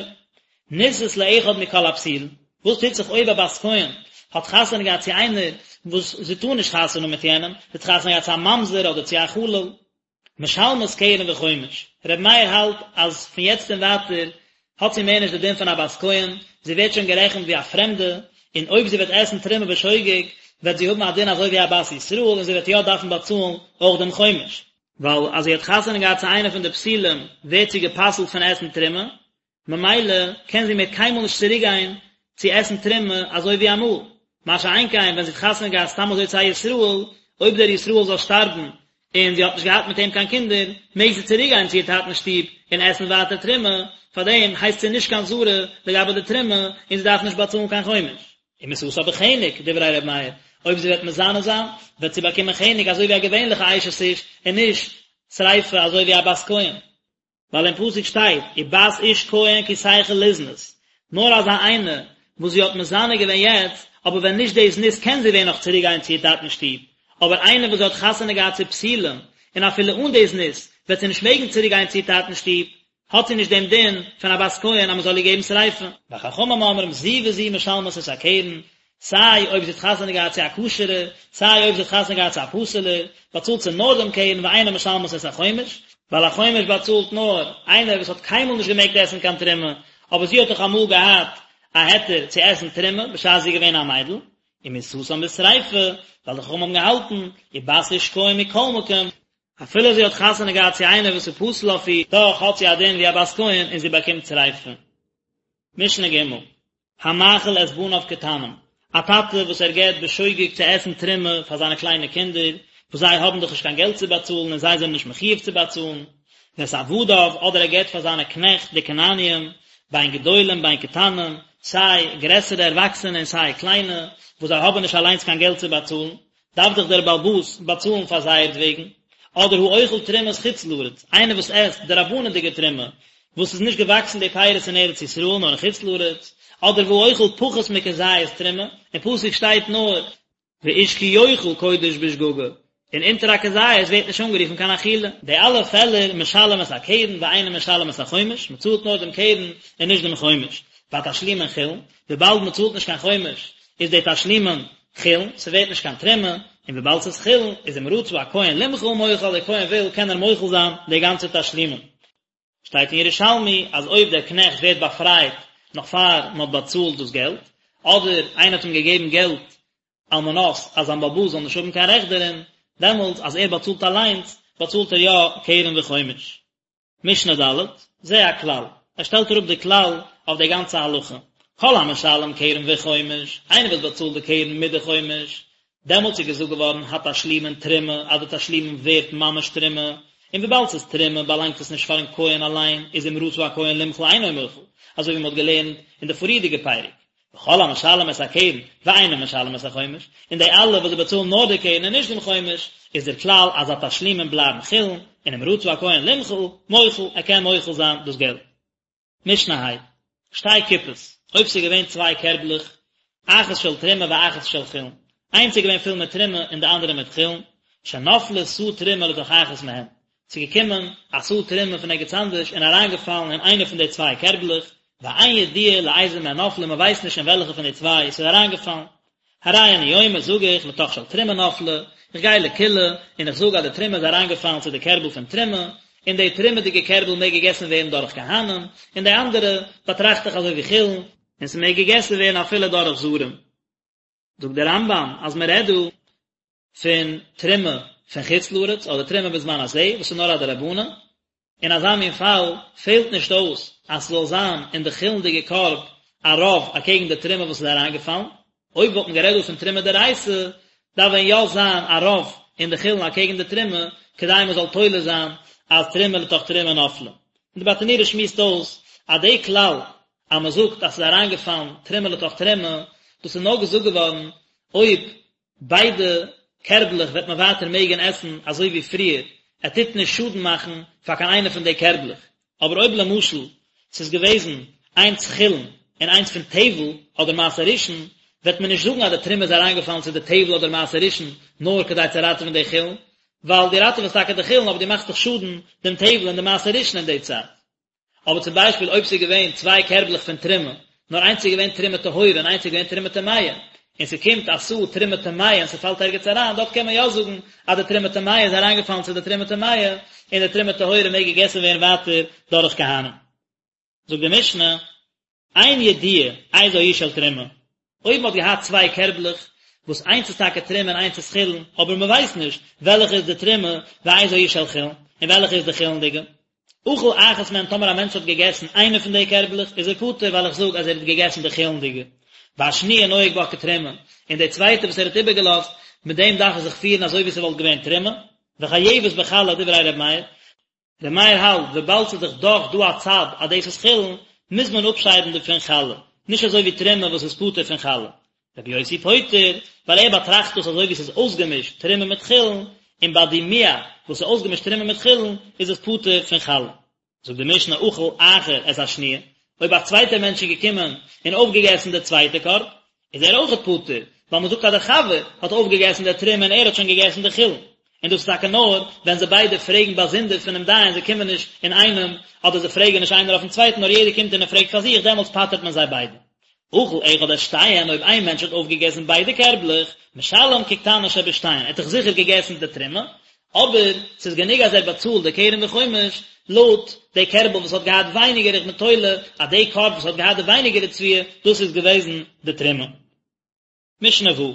נישאת לאחד מכל הפסולין, וואס טוט זיך אויב א בת כהן האט חתונה געהאט צו איינער וואס זי טאר נישט חתונה האבן מיט יענעם, זי האט חתונה געהאט צו א ממזר אדער צו א חלל, משלמת קרן וחומש, ר' מאיר האלט אז פון יעצט און ווייטער האט זי מער נישט די דין פון א בת כהן, זי ווערט שוין גערעכנט ווי א פרעמדע, און אויב זי וועט עסן תרומה בשוגג וועט זי האבן א דין אזוי ווי א בת ישראל און זי וועט יא דארפן באצאלן אויך דעם חומש. ווייל אז זי האט חתונה געהאט צו איינער פון די פסולים ווערט זי גע'פסל'ט פון עסן תרומה, ממילא קען זי מער קיינמאל נישט צוריק גיין צו עסן תרומה אזוי ווי אמאל, מה שאין כן ווען זי האט חתונה געהאט סתם אזוי צו א ישראל, אויב דער ישראל זאל שטארבן און זי האט נישט געהאט מיט אים קיין קינדער, מעג זי צוריק גיין צו איר טאטנ'ס שטוב און עסן ווייטער תרומה, פארדעם הייסט זי נישט קיין זרה לגבי די תרומה און זי דארף נישט באצאלן קיין חומש. ומיתתה בחנק, דברי ר' מאיר, אויב זי וועט מזנה זיין, וועט זי באקומען חנק אזוי ווי א געווענליכע אשת איש און נישט שריפה אזוי ווי א בת כהן. ווייל אין פסוק שטייט ובת איש כהן כי תחל לזנות, נאר אזא איינע וואס זי האט מזנה געווען יעצט, אבער ווען נישט די זנות קען זי ווען נאך צוריק גיין צו איר טאטנ'ס שטוב, אבער איינע וואס זי האט חתונה געהאט צו פסולים, און אפילו אן די זנות וועט זי נישט מעגן צוריק גיין צו איר טאטנ'ס שטוב, האט זי נישט דעם דין פון א בת כהן אז מען זאל איר געבן שריפה. וחכמים אומרים זו וזו משלמות את הקרן, סיי אויב זי האט חתונה געהאט צו א כשר'ע, סיי אויב זי האט חתונה געהאט צו א פסול'ער, באצאלט זי נאר דעם קרן ואינה משלמת את החומש, ווייל א חומש באצאלט נאר איינער וואס האט קיינמאל נישט געמעגט עסן קיין תרומה, אבער זי האט דאך אמאל געהאט א היתר צו עסן תרומה בשעת זי איז געווען א מיידל, ומיתתן בשריפה, ווייל די חכמים האבן געהאלטן, ובת איש כהן מכל מקום, אפילו זי האט חתונה געהאט צו איינער וואס איז פסול אויף איר, דאך האט זי א דין ווי א בת כהן און זי באקומט שריפה. משנה ג' המאכיל את בניו קטנים, א טאטע וואס ער געבט בשוגג צו עסן תרומה פאר זיינע קליינע קינדער, וואס זיי האבן דאך נישט קיין געלט צו באצאלן און זיי זענען נישט מחויב צו באצאלן, ואת עבדיו, אדער ער געבט פאר זיינע קנעכט די כנעניים, בין גדולים בין קטנים, סיי גרעסערע ערוואקסענע און סיי קליינע, וואס זיי האבן נישט אליינס קיין געלט צו באצאלן, דארף דאך דער בעל הבית באצאלן פאר זייערט וועגן, אדער האוכל תרומת חוץ לארץ, איינער וואס עסט דרבנן'דיגע תרומה, וואס איז נישט געוואקסן די פירות אין ארץ ישראל נאר אין חוץ לארץ, אדער והאוכל פחות מכזית תרומה, אין פסוק שטייט נאר, ואיש כי יאכל קודש בשגגה, און אונטער א כזית ווערט נישט אנגערופן קיין אכילה. די אלע פעלער משלם את הקרן ואינו משלם את החומש, מען צאלט נאר דעם קרן און נישט דעם חומש, והתשלומין חולין, וויבאלד מען צאלט נישט קיין חומש איז די תשלומין חולין, ס'ווערט נישט קיין תרומה, און וויבאלד ס'איז חולין, איז אם רצה הכהן למחול מוחל, דער כהן וויל קען ער מוחל זיין די גאנצע תשלומין. שטייט אין ירושלמי אז אויב דער קנעכט ווערט באפרייט נאך פאר מען האט באצאלט דאס געלט, אדער איינער האט אים געגעבן געלט על מנת אז זיין בעל הבית זאל נישט האבן קיין רעכט דערין, דעמאלטס אז ער באצאלט אליינס, באצאלט ער יא קרן וחומש. משנה ד', זה הכלל, ער שטעלט אראפ די כלל אויף די גאנצע הלכה, כל המשלם קרן וחומש, איינער וואס באצאלט די קרן מיט די חומש, דעמאלטס איז געזאגט געווארן התשלומין תרומה, אז די תשלומין ווערט ממש תרומה, און וויבאלד ס'איז תרומה באלאנגט עס נישט פארן כהן אליין, איז אם רצה הכהן למחול אינו מוחל, אזוי ווי מ'האט געלערנט אין די פריערדיגע פרק, וכל המשלם את הקרן ואינו משלם את החומש, און די אלע וואס זיי באצאלן נאר די קרן און נישט דעם חומש, איז דער כלל אז התשלומין בלייבן חולין, און אם רצה הכהן למחול, מוחל, ער קען מוחל זיין דאס געלט. משנה ה', שתי קופות, אויב ס'איז געווען צוויי קערבלעך, אחת של תרומה ואחת של חולין, איינס איז געווען פול מיט תרומה און די אנדערע מיט חולין, שנפלה סאה תרומה לתוך אחת מהן, ס'איז געקומען א סאה תרומה פון ערגעץ אנדערש און אריינגעפאלן אין איינע פון די צוויי קערבלעך, ואין ידוע לאיזה מהן נפלה מען ווייסט נישט אין וועלכע פון די צוויי עס איז אריינגעפאלן. הרי אני אומר זאג איך לתוך של תרומה נפלה, איך גיי לקולא און איך זאג אז די תרומה איז אריינגעפאלן צו די קערבל פון תרומה, און די תרומה'דיגע קערבל מעג געגעסן ווערן דורך כהנים, און די אנדערע באטראכט איך אזוי ווי חולין, און ס'מעג געגעסן ווערן אפילו דורך זרים. זאגט דער רמב"ם אז מען רעדט דא פון תרומה פון חוץ לארץ אדער תרומה בזמן הזה וואס איז נאר א דרבנן, אין אזא מין פאל פעלט נישט אויס אז ס'זאל זיין אין די חולין'דיגע קארב א רוב אקעגן די תרומה וואס איז אריינגעפאלן, אויב וואלט מען גערעדט דא פון תרומה דאורייתא דארף ווען יא זיין א רוב אין די חולין אקעגן די תרומה כדי מען זאל תולה זיין אז תרומה לתוך תרומה נפלה. און די ברטנורא שמועסט אויס אז די כלל אז מען זאגט אז ס'איז אריינגעפאלן תרומה לתוך תרומה, דאס איז נאר געזאגט געווארן אויב ביידע קערבלעך וועט מען ווייטער מעגן עסן אזוי ווי פריער, ער טוט נישט שאדן מאכן פאר קיין איינע פון די קערבלעך, אבער אויב למשל ס'איז געוועזן איינס חולין און איינס פון טבל אדער מעשר ראשון, וועט מען נישט זאגן אז די תרומה איז אריינגעפאלן צו די טבל אדער מעשר ראשון נאר כדי צו ראטעווען די חולין, ווייל דו ראטעוועסט טאקע די חולין אבער דו מאכסט דאך שאדן דעם טבל און די מעשר ראשון אין די צייט. אבער צום ביישפיל אויב ס'איז געווען צוויי קערבלעך פון תרומה, נאר איינס איז געווען תרומה טהורה און איינס איז געווען תרומה טמאה, און ס'קומט א סאה תרומה טמאה און ס'פאלט ערגעץ אריין, דארט קען מען יא זאגן אז די תרומה טמאה איז אריינגעפאלן צו די תרומה טמאה, און די תרומה טהורה מעג געגעסן ווערן ווייטער דורך כהנים. זאגט די משנה, אין ידוע איזו היא של תרומה, אויב מ'האט געהאט צוויי קערבלעך, וואס איינס איז טאקע תרומה און איינס איז חולין, אבער מ'ווייסט נישט וועלכע איז די תרומה ואיזו היא של חולין, און וועלכע איז די חולין'דיגע. אכל אחת מהן טאמער א מענטש האט געגעסן איינע פון די קערבלעך איז ער פטור ווייל איך זאג אז ער האט געגעסן די חולין'דיגע. והשניה נוהג בה כתרומה, און די צווייטע וואס ער האט איבערגעלאזט, מיט דעם דארף ער זיך פירן אזוי ווי ס'וואלט געווען תרומה. וחייבת בחלה דברי ר' מאיר. ר' מאיר האלט וויבאלד ס'איז דאך דאך דא א צד אז דאס איז חולין, מוז מען אפשיידן דערפון חלה, נישט אזוי ווי תרומה וואס איז פטור פון חלה. רבי יוסי פוטר, ווייל ער באטראכט דאס אזוי ווי ס'איז אויסגעמישט תרומה מיט חולין, און ביי דימוע וואס איז אויסגעמישט תרומה מיט חולין איז עס פטור פון חלה. זאגט די משנה אכל אחר את השניה, אויב א צווייטער מענטש איז געקומען און אויפגעגעסן די צווייטע קארב, איז ער אויכעט פטור, ווייל מען זאגט אז דער חבר האט אויפגעגעסן די תרומה און ער האט שוין געגעסן די חולין. און דאס איז טאקע נאר ווען זיי ביידע פרעגן באזונדער פונעם דיין, זיי קומען נישט אינאיינעם, אדער זיי פרעגן נישט איינער אויפן צווייטן, נאר יעדער קומט און ער פרעגט פאר זיך, דעמאלטס פטר'ט מען זיי ביידע. אכל אחד את שתיהן, אויב איין מענטש האט אויפגעגעסן ביידע קערבלעך, משלם כקטנה שבשתיהן, ער האט דאך זיכער געגעסן די תרומה, אבער ס'איז גענוג אז ער באצאלט די קרן וחומש לויט די קערבל וואס האט געהאט ווייניגער איך בין תולה אז די קארב וואס האט געהאט די ווייניגערע תבואה דאס איז געוועזן די תרומה. משנה ו',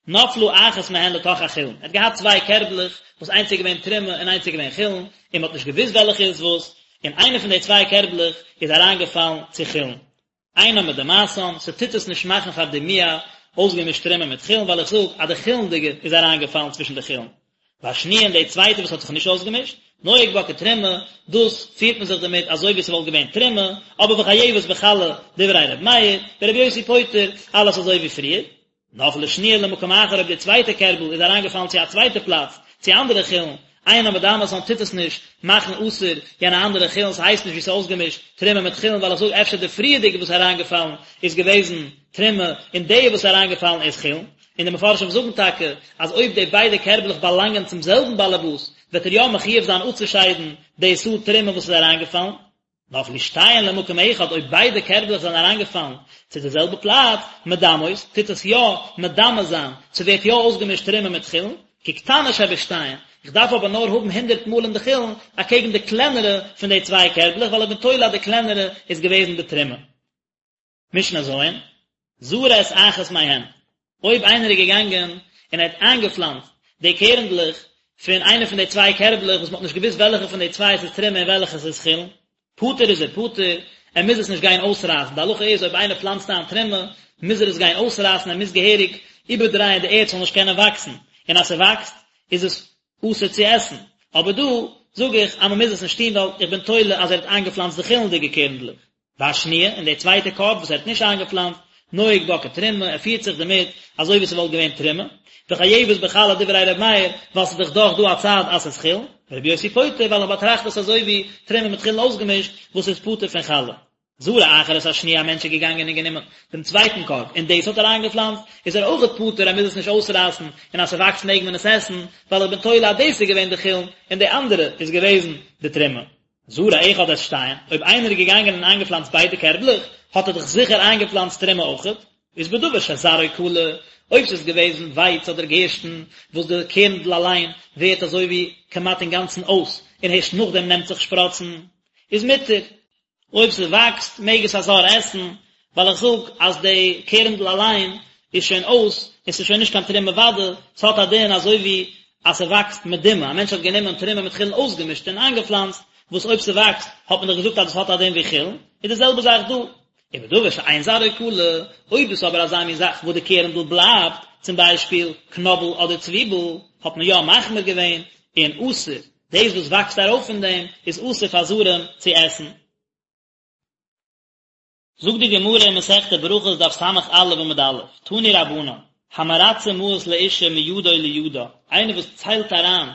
נפלה אחת מהן לתוך החולין, ער האט געהאט צוויי קערבלעך וואס איינס איז געווען תרומה און איינס איז געווען חולין, און מען האט נישט געוואוסט וועלכע איז וואס, און איינע פון די צוויי קערבלעך איז אריינגעפאלן צו חולין. אינה מדמעתן, ס'טוט עס נישט מאכן פאר דימוע אויסגעמישט תרומה מיט חולין ווייל איך זאג אז די חולין'דיגע איז אריינגעפאלן צווישן די חולין. והשניה און די צווייטע וואס האט זיך נישט אויסגעמישט, נוהג בה כתרומה, דאס פירט מען זיך דערמיט אזוי ווי ס'וואלט געווען תרומה, אבער וחייבת בחלה דברי ר' מאיר, ור' יוסי פוטר, אלעס אזוי ווי פריער. נפלה שניה למקום אחר אויב די צווייטע קערבל איז אריינגעפאלן צו א צווייטע פלאץ, צו אנדערע חולין, אינה מדמעתן טוט עס נישט מאכן אסור יענע אנדערע חולין, ס'הייסט נישט ווי ס'איז אויסגעמישט תרומה מיט חולין ווייל איך זאג אפשר די פריערדיגע וואס איז אריינגעפאלן איז געוועזן תרומה און די וואס איז אריינגעפאלן איז חולין, און די מפרשים זאגן טאקע אז אויב די ביידע קערבלעך באלאנגען צום זעלבן באלעבאס וועט ער יא מחויב זיין אפצושיידן די סאה תרומה וואס איז אריינגעפאלן. נפלו שתיהן למקום אחד, אויב ביידע קערבלעך זענען אריינגעפאלן צו די זעלבע פלאץ, מדמעות, טוט עס יא מדמה זיין, ס'ווערט יא אויסגעמישט תרומה מיט חולין, כקטנה שבשתיהן, איך דארף אבער נאר האבן הונדערט מאל אין די חולין, אקעגן די קלענערע פון די צוויי קערבלעך, ווייל איך בין תולה אז די קלענערע איז געוועזן די תרומה. משנה ז', זרע את אחת מהן, אויב איינער איז געגאנגען און ער האט איינגעפלאנצט. די קערנדלעך פון איינע פון די צוויי קערבלעך וואס מען האט נישט געוואוסט וועלכע פון די צוויי עס איז תרומה און וועלכע עס איז חולין, פטור איז ער פטור, ער מוז עס נישט גיין אויסרייסן, די הלכה איז אויב איינער פלאנצט איין תרומה מוז ער עס גיין אויסרייסן, ער מוז געהעריג איבערדרייען די ערד ס'זאל נישט קענען וואקסן, און אז ס'וואקסט איז עס אסור צו עסן, אבער דא זאג איך אז מען מוז עס נישט טון ווייל איך בין תולה אז ער האט איינגעפלאנצט די חולין'דיגע קערנדלעך. והשניה, און די צווייטע קארב וואס ער האט נישט איינגעפלאנצט, נוהג בה כתרומה, ער פירט זיך דערמיט אזוי ווי ס'וואלט געווען תרומה, וחייבת בחלה דברי ר' מאיר, ווייל ס'איז דאך דאך דא א צד אז ס'איז חולין, ורבי יוסי פוטר ווייל איך באטראכט עס אזוי ווי תרומה מיט חולין אויסגעמישט וואס איז פטור פון חלה. זרע אחר את השניה א מענטש איז געגאנגען און גענומען דעם צווייטן קארב און דאס האט ער איינגעפלאנצט, איז ער אויכעט פטור ער מוז עס נישט אויסרייסן, און אז ס'וואקסט מעג מען עס עסן, ווייל איך בין תולה אז דאס איז געווען די חולין און די אנדערע איז געוועזן די תרומה. זרע אחד את שתיהן, אויב איינער איז געגאנגען און איינגעפלאנצט ביידע קערבלעך, האט ער דאך זיכער איינגעפלאנצט תרומה אויכעט, איז בדבר שזרעו כלה, אויב ס'איז געוועזן ווייץ אדער גערשטן, וואס די קערנדל אליין ווערט אזוי ווי כמעט אינגאנצן אויס, און הערשט נאכדעם נעמט זיך שפראצן, איז מותר. אויב ס'וואקסט מעג עס א זר עסן, ווייל איך זאג אז די קערנדל אליין איז שוין אויס און ס'איז שוין נישט קיין תרומה ודאי, ס'האט א דין אזוי ווי אז ס'וואקסט מדומע, א מענטש האט גענומען תרומה מיט חולין אויסגעמישט און איינגעפלאנצט, וואס אויב ס'וואקסט האט מען דאך געזאגט אז דאס האט א דין ווי חולין, איז די זעלבע זאך דא. ובדבר שאין זרעו כלה, אויב דאס איז אבער אזא מין זאך וואס די קערנדל בלייבט, צום ביישפיל קנאבל אדער צוויבל, האט מען יא מחמיר געווען און אסור, דאס וואס וואקסט ארויף פון דעם איז אסור פאר זרים צו עסן. זאגט די גמרא אין מסכת ברכות דף ס"א עמוד א', תנו רבנן, המרצה מעות לאשה מידו לידה, איינער וואס ציילט אריין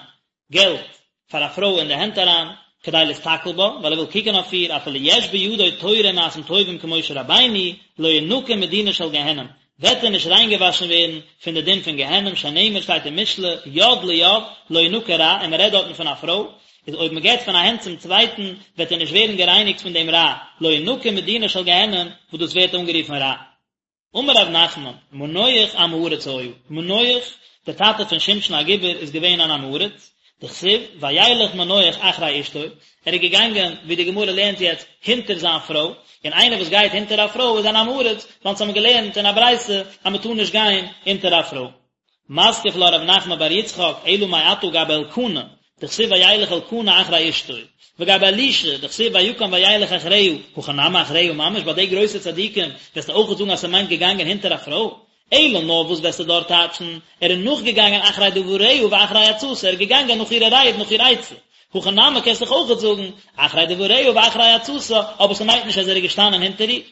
געלט פאר א פרוי אין די הענט אריין, כדי להסתכל בה, ווייל ער וויל קוקן אויף איר, אפילו יש בידו תורה ומעשים טובים כמשה רבינו, לא ינקה מדינה של גיהנום, וועט ער נישט ריינגעוואשן ווערן פון די דין פון גיהנום, שנאמר שטייט אין משלי, יד ליד, לא ינקה רע, און מען רעדט דארטן פון א פרוי, איז אויב מען געבט פון א הענט צום צווייטן, וועט ער נישט ווערן גערייניגט פון דעם רע, לא ינקה מדינה של גיהנום, וואס דאס ווערט אנגערופן רע. אמר רב נחמן, מנוח עם הארץ היה, מנוח, דער טאטע פון שמשון הגיבור איז געווען אן עם הארץ, דכתיב, וילך מנוח אחרי אשתו, ער איז געגאנגען, ווי די גמרא לערנט יעצט, הינטער זיין פרוי, און איינער וואס גייט הינטער א פרוי איז אן עם הארץ, ווייל אונז האבן געלערנט אין א ברייתא אז מען טאר נישט גיין הינטער א פרוי. מתקיף לה רב נחמן בר יצחק, אלא מעתה גבי אלקנה, דכתיב וילך אלקנה אחרי אשתו, וגבי אלישע, דכתיב ויקם וילך אחריה, הכא נמי אחריה ממש, ביי די גרויסע צדיקים וועסטו אויכעט זאגן אז ס'מיינט געגאנגען הינטער א פרוי? אלא נאר וואס וועסטו דארט טייטשן, ער איז נאכגעגאנגען אחרי דבריה ואחרי עצתה, ער איז געגאנגען נאך אירע רייד נאך איר עצה. הכא נמי קענסט דאך אויכעט זאגן, אחרי דבריה ואחרי עצתה, אבער ס'מיינט נישט אז ער איז געשטאנען הינטער איר.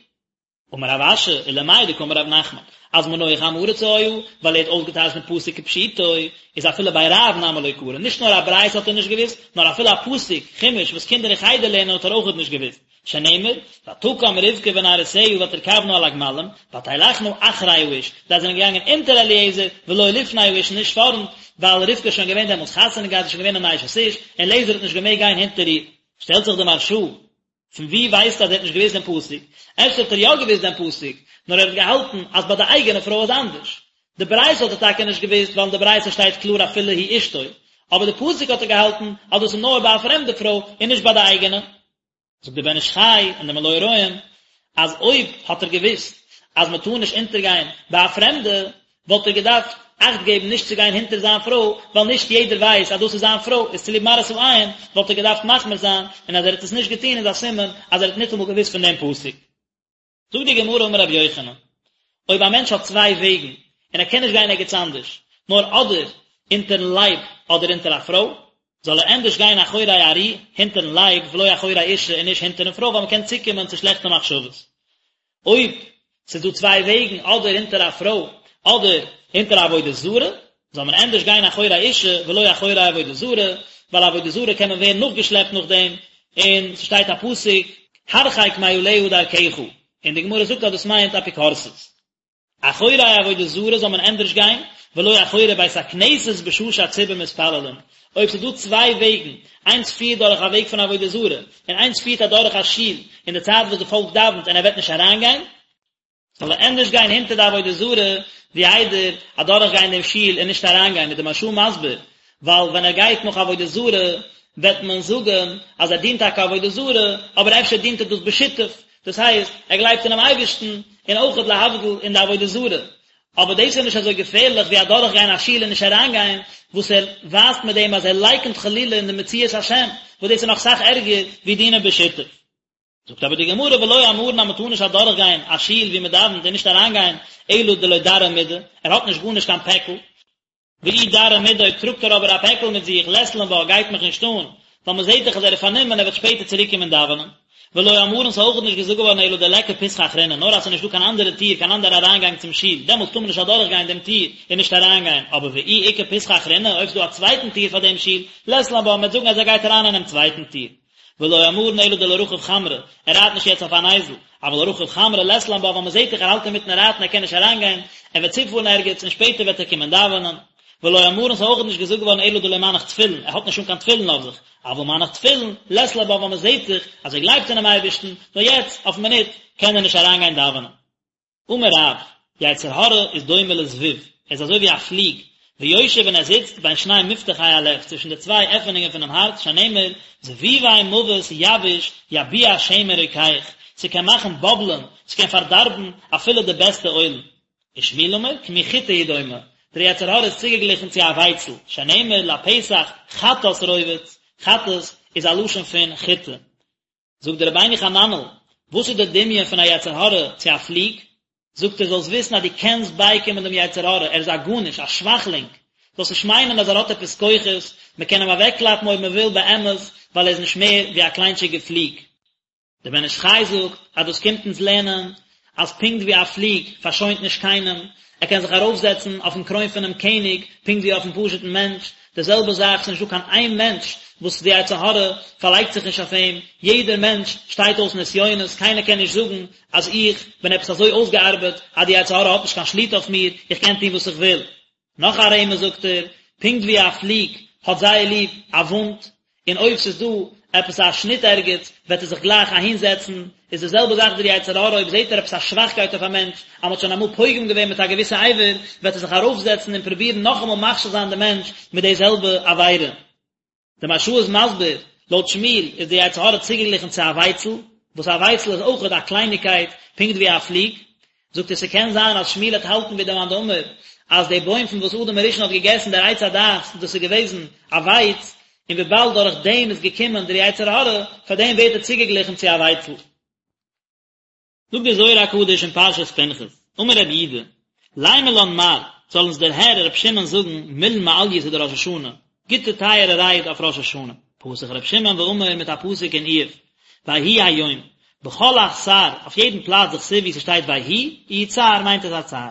אמר רב אשי, ולמאי דקאמר רב נחמן, אז מנוח עם הארץ היה, ווייל ער האט אויסגעטייטשט דעם פסוק כפשוטו, איז אפילו בי רב נמי לא קרי, נישט נאר א ברייתא האט ער נישט געוואוסט, נאר אפילו א פסוק, חומש, וואס קינדער אין חדר לערנען האט ער אויכעט נישט געוואוסט. שנאמר, ותקם רבקה ונערותיה ותרכבנה על הגמלים, ותלכנה אחרי האיש, זיי זענען געגאנגען אונטער אליעזר, ולא לפני האיש און נישט פארנט, ווייל רבקה איז שוין געווען דעמאלטס חתונה געהאט, איז שוין געווען אן אשת איש, און אליעזר האט נישט געמעגט גיין הונטער איר. שטעלט זיך די מהרש"א, פון וואו ווייסטו אז ער האט נישט געוואוסט דעם פסוק? אפשר האט ער יא געוואוסט דעם פסוק, נאר ער האט געהאלטן אז ביי די אייגענע פרוי איז אנדערש. די ברייתא האט ער טאקע נישט געוואוסט, ווייל אין די ברייתא שטייט קלאר אפילו היא אשתו, אבער די פסוק האט ער געהאלטן אז דאס איז נאר ביי א פרעמדע פרוי און נישט ביי די אייגענע. זאגט דער בן איש חי און דער מלא הרועים אז אויב האט ער געוואוסט אז מען טאר נישט אונטערגיין ביי א פרעמדע, וואלט ער געדארפט אכט געבן נישט צו גיין הונטער זיין פרוי, ווייל נישט יעדער ווייסט אז דאס איז זיין פרוי, איז צוליב מראית העין וואלט ער געדארפט מחמיר זיין, און אז ער האט עס נישט געטון איז א סימן אז ער האט ניטאמאל געוואוסט פון דעם פסוק. זאגט די גמרא אמר רבי יוחנן, אויב א מענטש האט צוויי וועגן און ער קען נישט גיין ערגעץ אנדערש, נאר אדער אונטערן לייב אדער אונטער א פרוי, זאל ער ענדערש גיין אחורי ארי, הינטערן לייב, ולא אחורי אישה און נישט הינטערן פרוי ווייל מען קען צוקומען צו שלעכטע מחשבות. אויב ס'איז דא צוויי וועגן אדער הינטער א פרוי אדער הינטער א עבודה זרה, זאל מען ענדערש גיין אחורי אישה ולא אחורי עבודה זרה, ווייל עבודה זרה קען מען ווערן נאכגעשלעפט נאך דעם, און ס'שטייט א פסוק הרחק מעליה דרכך, און די גמרא זאגט אז דאס מיינט אפיקורסות. אחורי עבודה זרה זאל מען ענדערש גיין, ולא אחורי בית הכנסת בשעה שהציבור מתפללים. אויב ס'איז דא צוויי וועגן, איינס פירט דורך א וועג פון עבודה זרה, און איינס פירט אדורך א שול אין די צייט וואס די פאלק דאווענט און ער וועט נישט אריינגיין, זאל ער ענדערש גיין הינטער די עבודה זרה ווי איידער אדורך גיין דעם שול און נישט אריינגיין, איז די מהרש"א מסביר, ווייל ווען ער גייט נאך עבודה זרה וועט מען זאגן אז ער דינט טאקע עבודה זרה, אבער אפשר דינט ער דאס בשיתוף, דאס הייסט, ער גלייבט אינעם אייבערשטן, און אויכעט להבדיל אין די עבודה זרה. אבער דאס איז נישט אזוי געפערליך ווי אדורכגיין א שול און נישט אריינגיין, וואס ער ווייזט מיט דעם אז ער לייקנט חלילה אין די מציאות השם, וואס דאס איז נאך סאך ערגער ווי דינא בשיתוף. זאגט אבער די גמרא ולא אמרן אז מען טאר נישט אדורכגיין א שול וואו מען דאווענט און נישט אריינגיין אלא דלא דרי מידי, ער האט נישט גארנישט קיין פעקל, ואי דרי מידי אויב טראגט ער אבער א פעקל מיט זיך לית לן בה גייט מיך נישט אן, ווייל מען זעט דאך אז ער איז פארנומען ער וועט שפעטער צוריק קומען דאווענען. ולא אמרן ס'איז אויך נישט געזאגט געווארן אלא דליכא פתחא אחרינא נאר אז ס'איז נישט דא קיין אנדערע טיר קיין אנדערע אריינגאנג צום שול דעמאלטס טאר מען נישט אדורך גיין דעם טיר און נישט אריינגיין אבער ואי איכא פתחא אחרינא אויב ס'איז דא א צווייטן טיר פאר דעם שול לית לן בה מ'וועט זאגן אז ער גייט אריין אינעם צווייטן טיר. ולא אמרן אלא דלא רכיב חמרא, ער רייט נישט יעצט אויף אן אייזל, אבל רכיב חמרא לית לן בה ווייל מען זעט דאך ער האלט אינמיטן רייטן ער קען נישט אריינגיין, ער וועט צופארן ערגעץ און שפעטער וועט ער קומען דאווענען. ולא אמרן ס'איז אויך נישט געזאגט געווארן אלא דלא מנח תפילין, ער האט נישט אן קיין תפילין אויף זיך, אבל מנח תפילין, לית לן בה ווייל מען זעט דאך אז ער גלייבט אינעם אייבערשטן, נאר יעצט אויפן מינוט קען ער נישט אריינגיין דאווענען. אמר רב, יצר הרע איז דומה לזבוב, ער איז אזוי ווי א פליג, ויושב און ער זיצט בין שני מפתחי הלב, צווישן די צוויי עפענונגען פונעם הארץ, שנאמר, זבובי מוות יבאיש יביע שמן רוקח, ס'קען מאכן באבלען, ס'קען פארדארבן אפילו די בעסטע אוילן. ושמואל אמר, כמין חיטה הוא דומה, דער יצר הרע איז צוגעגליכן צו א ווייצל, שנאמר, לפתח חטאת רובץ, חטאת איז א לשון פון חיטה. זאגט דער רבינו חננאל, וואס איז דער דמיון פון א יצר הרע צו א פליג? זאגט ער, זאלסט וויסן אז דו קענסט בייקומען דעם יצר הרע, ער איז א גארנישט, א שוואכלינג, זאלסט נישט מיינען אז ער האט עפעס כוחות, מען קען אים אוועקקלאפן אויב מען וויל באמת, ווייל ער איז נישט מער ווי א קליינטשיגע פליג. דער בן איש חי זאגט אז דאס קומט אונז לערנען אז פונקט ווי א פליג פארשוינט נישט קיינעם, ער קען זיך ארויפזעצן אויפן קרוין פונעם קעניג פונקט ווי אויפן פשוט'ן מענטש, די זעלבע זאך, ס'איז נישטא קיין איין מענטש וואס די יצר הרע פארלייגט זיך נישט אויף אים, יעדער מענטש שטייט אויס נסיונות, קיינער קען נישט זאגן אז איך בין עפעס אזוי אויסגעארבעט אז די יצר הרע האט נישט קיין שליטה אויף מיר, איך קען טון וואס איך וויל. נאך א רמז זאגט ער, פונקט ווי א פליג האט זייער ליב א וואונד, און אויב ס'איז דא עפעס א שניט ערגעץ וועט ער זיך גלייך אהין זעצן, איז די זעלבע זאך דער יצר הרע אויב זעט ער עפעס א שוואכקייט אויף א מענטש, אז מ'האט שוין אמאל פוגם געווען מיט א געוויסע אבר, וועט ער זיך ארויפזעצן און פרובירן נאכאמאל מכשיל זיין די מענטש מיט די זעלבע עבירה. דער מהרש"א איז מסביר, לויט שמואל איז די יצר הרע צוגעגליכן צו א ווייצל, וואס א ווייצל איז אויכעט א קלייניגקייט פונקט ווי א פליג, זאגט ער ס'קען זיין אז שמואל וועט האלטן ווי דער מאן דאמר אז די בוים פון וואס אדם הראשון האט געגעסן דער עץ הדעת דאס איז געוועזן א ווייץ, און וויבאלד דורך דעם איז געקומען דער יצר הרע, פאר דעם ווערט ער צוגעגליכן צו א ווייצל. זאגט דער זוהר הקדוש אין פרשת פנחס, אמר רבי יהודה, לימא לן מר, זאל אונז דער הער רבי שמעון זאגן מילין מעליותא דראש השנה, גוטע טייערע רייד אויף ראש השנה, פתח רבי שמעון ואמר מיט א פסוק אין איוב, ויהי היום, בכל אתר, אויף יעדן פלאץ דכתיב ווי ס'שטייט ויהי, איהו צער מיינט עס א צער.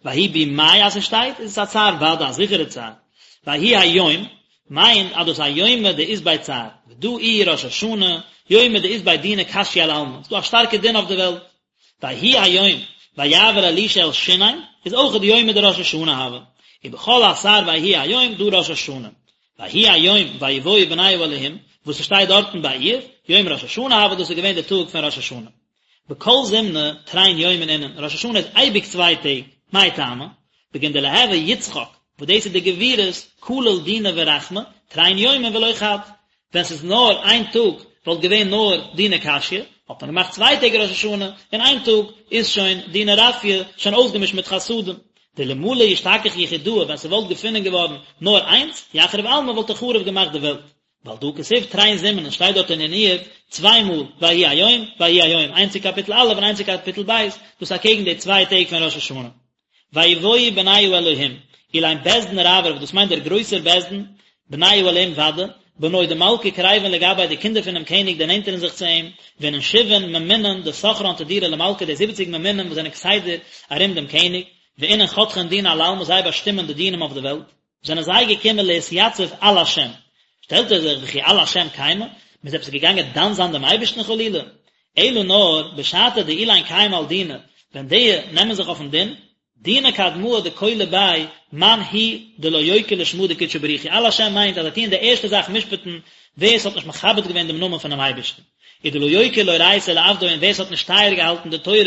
ויהי בימי אז ס'שטייט, איז עס א צער ודאי, א זיכערע צער. ויהי היום, מיינט אז דאס א יומא דאית ביה צער, ודא איהו ראש השנה, יומא דאית ביה דינא קשיא על עלמא, ס'דא א שטארקע דין אויף די וועלט. ויהי היום, ויעבר אלישע אל שונם, איז אויכעט יומא דראש השנה הוה. ובכל אתר ויהי היום, דא ראש השנה. ויהי היום ויבואו בני האלהים, וואס ס'שטייט דארטן ביי איוב, יום ראש השנה הוה, דאס איז געווען די טאג פון ראש השנה. בכל זימנא תרין יומין אינון, ראש השנה איז אייביג צוויי טעג, מאי טעמא? בגין דליהוי יצחק, וואס דאס איז די גבורות, כליל דינא ורחמי, תרין יומין ולא חד. ווען ס'איז נאר איין טאג וואלט געווען נאר דינא קשיא, האט מען געמאכט צוויי טעג ראש השנה, און איין טאג איז שוין דינא רפיא, שוין אויסגעמישט מיט חסדים. דאלמלא אשתכח יחידאה ווען ס'וואלט געפונען געווארן נאר איינס, יחריב עלמא וואלט ער חרוב געמאכט די וועלט. ועל דא כתיב תרין זימנין שטייט דארט אין איוב צוויי מאל ויהי היום ויהי היום איינס אין קאפיטל א' און איינס אין קאפיטל ב', דאס אקעגן די צוויי טעג פון ראש השנה. ויבואו בני האלהים, אלין בית דין רברב, דאס מיינט דער גרויסער בית דין, בני האלהים ודאי, בנוי דמלכא קריבין לגביה די קינדער פונעם קעניג דערנענטערן זיך צו אים, ואינון שבעין ממונין דסכרן תדירא למלכא די זיבעציג ממונים וואס זענען כסדר ארום דעם קעניג, ואינון חתכין דינא על עלמא זיי באשטימען די דינים אויף די וועלט. זענען זיי געקומען להתייצב על השם, שטעלט ער זיך וכי על השם קיימי, מען איז עפעס געגאנגען דן זיין דעם אייבערשטן חלילה? אלא נאר בשעתא דאילין קיימי על דינא, ווען די נעמען זיך אויפן דין, דינא קדמאה דכלא ביה מאן הוא דלא יוקר לשמא דקודשא בריך הוא, על השם מיינט אז זיי טוען די ערשטע זאך משפט'ן ווער עס האט נישט מכבד געווען דעם נאמען פונעם אייבערשטן, ודלא יוקר לאורייתא ולעבדוי און ווער עס האט נישט טייער געהאלטן די תורה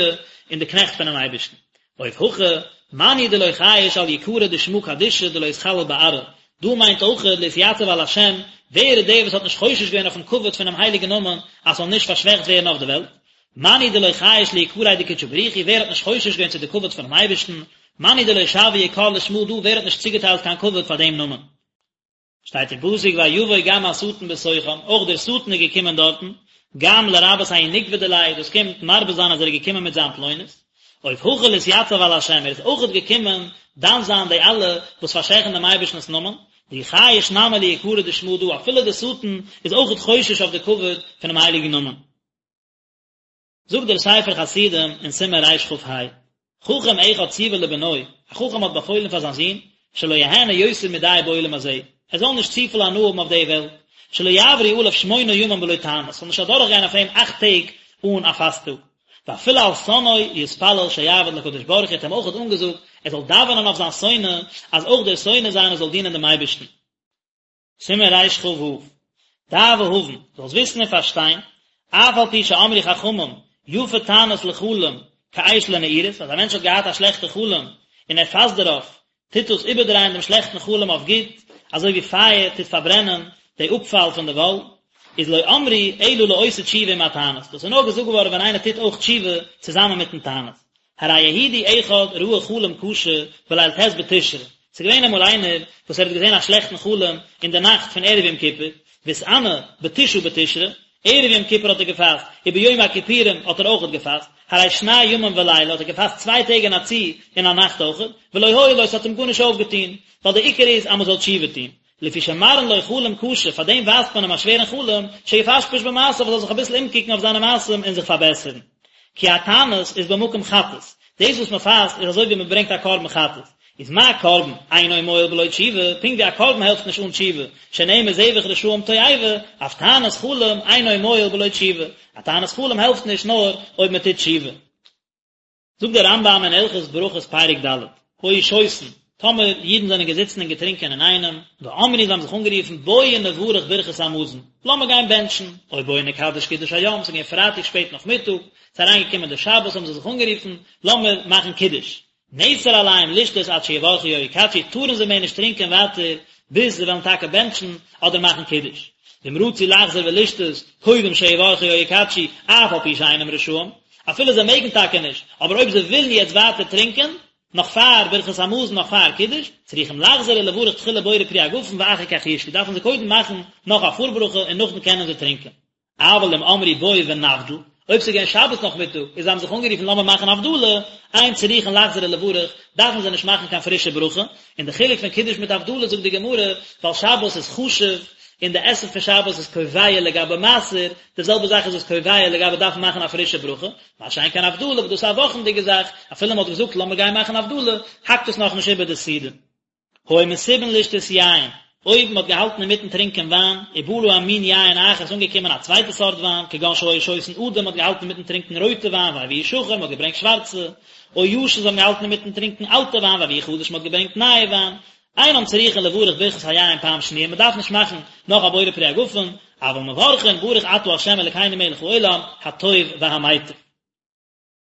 און די קנעכט פונעם אייבערשטן. אוף הכא, מאן הוא דלא חייש על יקרא דשמא קדישא דלא יתחלל בארעא, דא מיינט אויכעט להתייצב על השם, ווער איז דער וואס האט נישט חושש געווען אויפן כבוד פונעם הייליגן נאמען אז ס'זאל נישט פארשוועכט ווערן אויף די וועלט? מאן הוא דלא חייש ליקריה דקודשא בריך הוא, ווער האט נישט חושש געווען צו די כבוד פונעם אייבערשטן? מאן הוא דלא שווי יקר לשמא דא, ווער האט נישט צוגעטיילט קיין כבוד פאר דעם נאמען? שטייט אין פסוק ויבוא גם השטן בתוכם, אויך דער שטן איז געקומען דארטן, גם לרבות ההוא נוקבא דיליה, דאס קומט מרבה זיין אז ער איז געקומען מיט זיין פלונית, אוף הכא לאתייצב על השם, ער איז אויכעט געקומען דן זיין די אלע וואס פארשוועכן דעם אייבערשטנ'ס נאמען, דאיהו חייש נמי ליקרא דשמא דא, אפילו דער שטן איז אויכעט חושש אויף די כבוד פונעם הייליגן נאמען. זאגט דער ספר חסידים אין סימן רכ"ה, חכם אחד ציווה לבנו, א חכם האט באפוילן פאר זיין זון, שלא יהנה יותר מדי בעולם הזה, ער זאל נישט צופיל הנאה האבן אויף די וועלט, שלא יעברו עליו שמונה ימים בלא תענית, ס'זאל נישט אדורכגיין אויף אים אכט טעג אן א פאסט טאג. ואפילו על שונאו יתפלל שיעבוד לקדוש ברוך הוא, האט אים אויכעט אנגעזאגט ער זאל דאווענען אויף זיין שונא, אז אויך דער שונא זיינער זאל דינען דעם אייבערשטן. סימן רכ"ו, דע והבן, זאלסט וויסן און פארשטיין, אף על פי שאמרו חכמים, יפה תענית לחלום, כאש לנעורת, אז א מענטש האט געהאט א שלעכטע חלום, און ער פאסט דערויף, טוט דאס איבערדרייען דעם שלעכטן חלום אויף גוט, אזוי ווי פייער טוט פארברענען די אפפאל פון די וואל, איז לא אמרו אלא לעושה תשובה עם התענית, דאס איז נאר געזאגט געווארן ווען איינער טוט אויך תשובה צוזאמען מיטן תענית. הרי יהודי אחד ראה חלום קשה בליל ט' בתשרי, ס'איז געווען אמאל איינער וואס ער האט געזען א שלעכטן חלום אין די נאכט פון ערב יום כיפור, והתענה בתשעה בתשרי, ערב יום כיפור האט ער געפאסט, וביום הכיפורים האט ער אויכעט געפאסט, הרי שני ימים ולילה האט ער געפאסט צוויי טעג אין א צי און א נאכט אויכעט, ולא הועיל לו ס'האט אים גארנישט אויפגעטון, ווייל די עיקר איז אז מ'זאל תשובה טון. לפי שמראין לו חלום קשה, פאר דעם ווייזט מען אים א שווערן חלום, שיפשפש במעשיו, ער זאל זיך אביסל אומקוקן אויף זיינע מעשים און זיך פארבעסערן. כי התענית איז במקום חטאת, דאס וואס מען פאסט איז אזוי ווי מען ברענגט א קרבן חטאת, איז מה קרבן אינו מועיל בלא תשובה, פונקט ווי א קרבן העלפט נישט אן תשובה, שנאמר זבח רשעים תועבה, אף תענית חלום אינו מועיל בלא תשובה, א תענית חלום העלפט נישט נאר אויב מען טוט תשובה. זאגט דער רמב"ם אין הלכות ברכות פרק ד', היו שותין, טאמער אידן זענען געזיצן און געטרינקען אינאיינעם, ואמרו זיי האבן זיך אנגערופן בואו נברך ברכת המזון, לאמיר גיין בענטשן, או בואו נקדש קידוש היום, ס'איז געווען פרייטאג שפעט נאכמיטאג, ס'איז אריינגעקומען די שבת האבן זיי זיך אנגערופן, לאמיר מאכן קידוש. נאסר עליהם לשתות עד שיברכו או יקדשו, טארן זיי מער נישט טרינקען ווייטער ביז זיי וועלן טאקע בענטשן אדער מאכן קידוש. ואם רצו לחזור ולשתות קודם שיברכו או יקדשו, אף על פי שאינם רשאים, אפילו זיי מעגן טאקע נישט, אבער אויב זיי ווילן יעצט ווייטער טרינקען, נאך פאר ברכת המזון נאך פאר קידוש, צריכים לחזור ולברך תחילה בורא פרי הגפן ואחר כך ישתו, דארפן זיי קודם מאכן נאך א פארברכה און נאכדעם קענען זיי טרינקען. אבל אם אמרו בואו ונבדיל, אויב ס'איז געווען שבת נאכמיטאג און זיי האבן זיך אנגערופן לאמיר מאכן הבדלה, אין צריכין לחזור ולברך, דארפן זיי נישט מאכן קיין פרישע ברכה, און די חילוק פון קידוש מיט הבדלה זאגט די גמרא, ווייל שבת איז חשוב, און די עסן פון שבת איז קובע לגבי מעשר, די זעלבע זאך איז עס קובע לגבי דארפן מאכן א פרישע ברכה, מה שאין כן הבדלה וואס דאס איז א וואכנדיגע זאך, אפילו מען האט געזאגט לאמיר גיין מאכן הבדלה, האקט עס נאכנישט איבער די סעודה. היו מסובין לשתות יין, אויב מען האט געהאלטן אינמיטן טרינקען וויין, ובא להם מין יין אחר, איז אנגעקומען א צווייטע סארט וויין, כגון שהיו שותין אדום, מען האט געהאלטן אינמיטן טרינקען רויטע וויין, והביאו שחור, מען האט געברענגט שווארצע, או ישן, זיי האבן געהאלטן אינמיטן טרינקען אלטע וויין, והביאו חדש, מען האט געברענגט נייע וויין, אינם צריכין לברך ברכת היין פעם שניה, מען דארף נישט מאכן נאך א בורא פרי הגפן, אבל מברכין ברוך אתה ה' אלקינו מלך העולם, הטוב והמיטיב.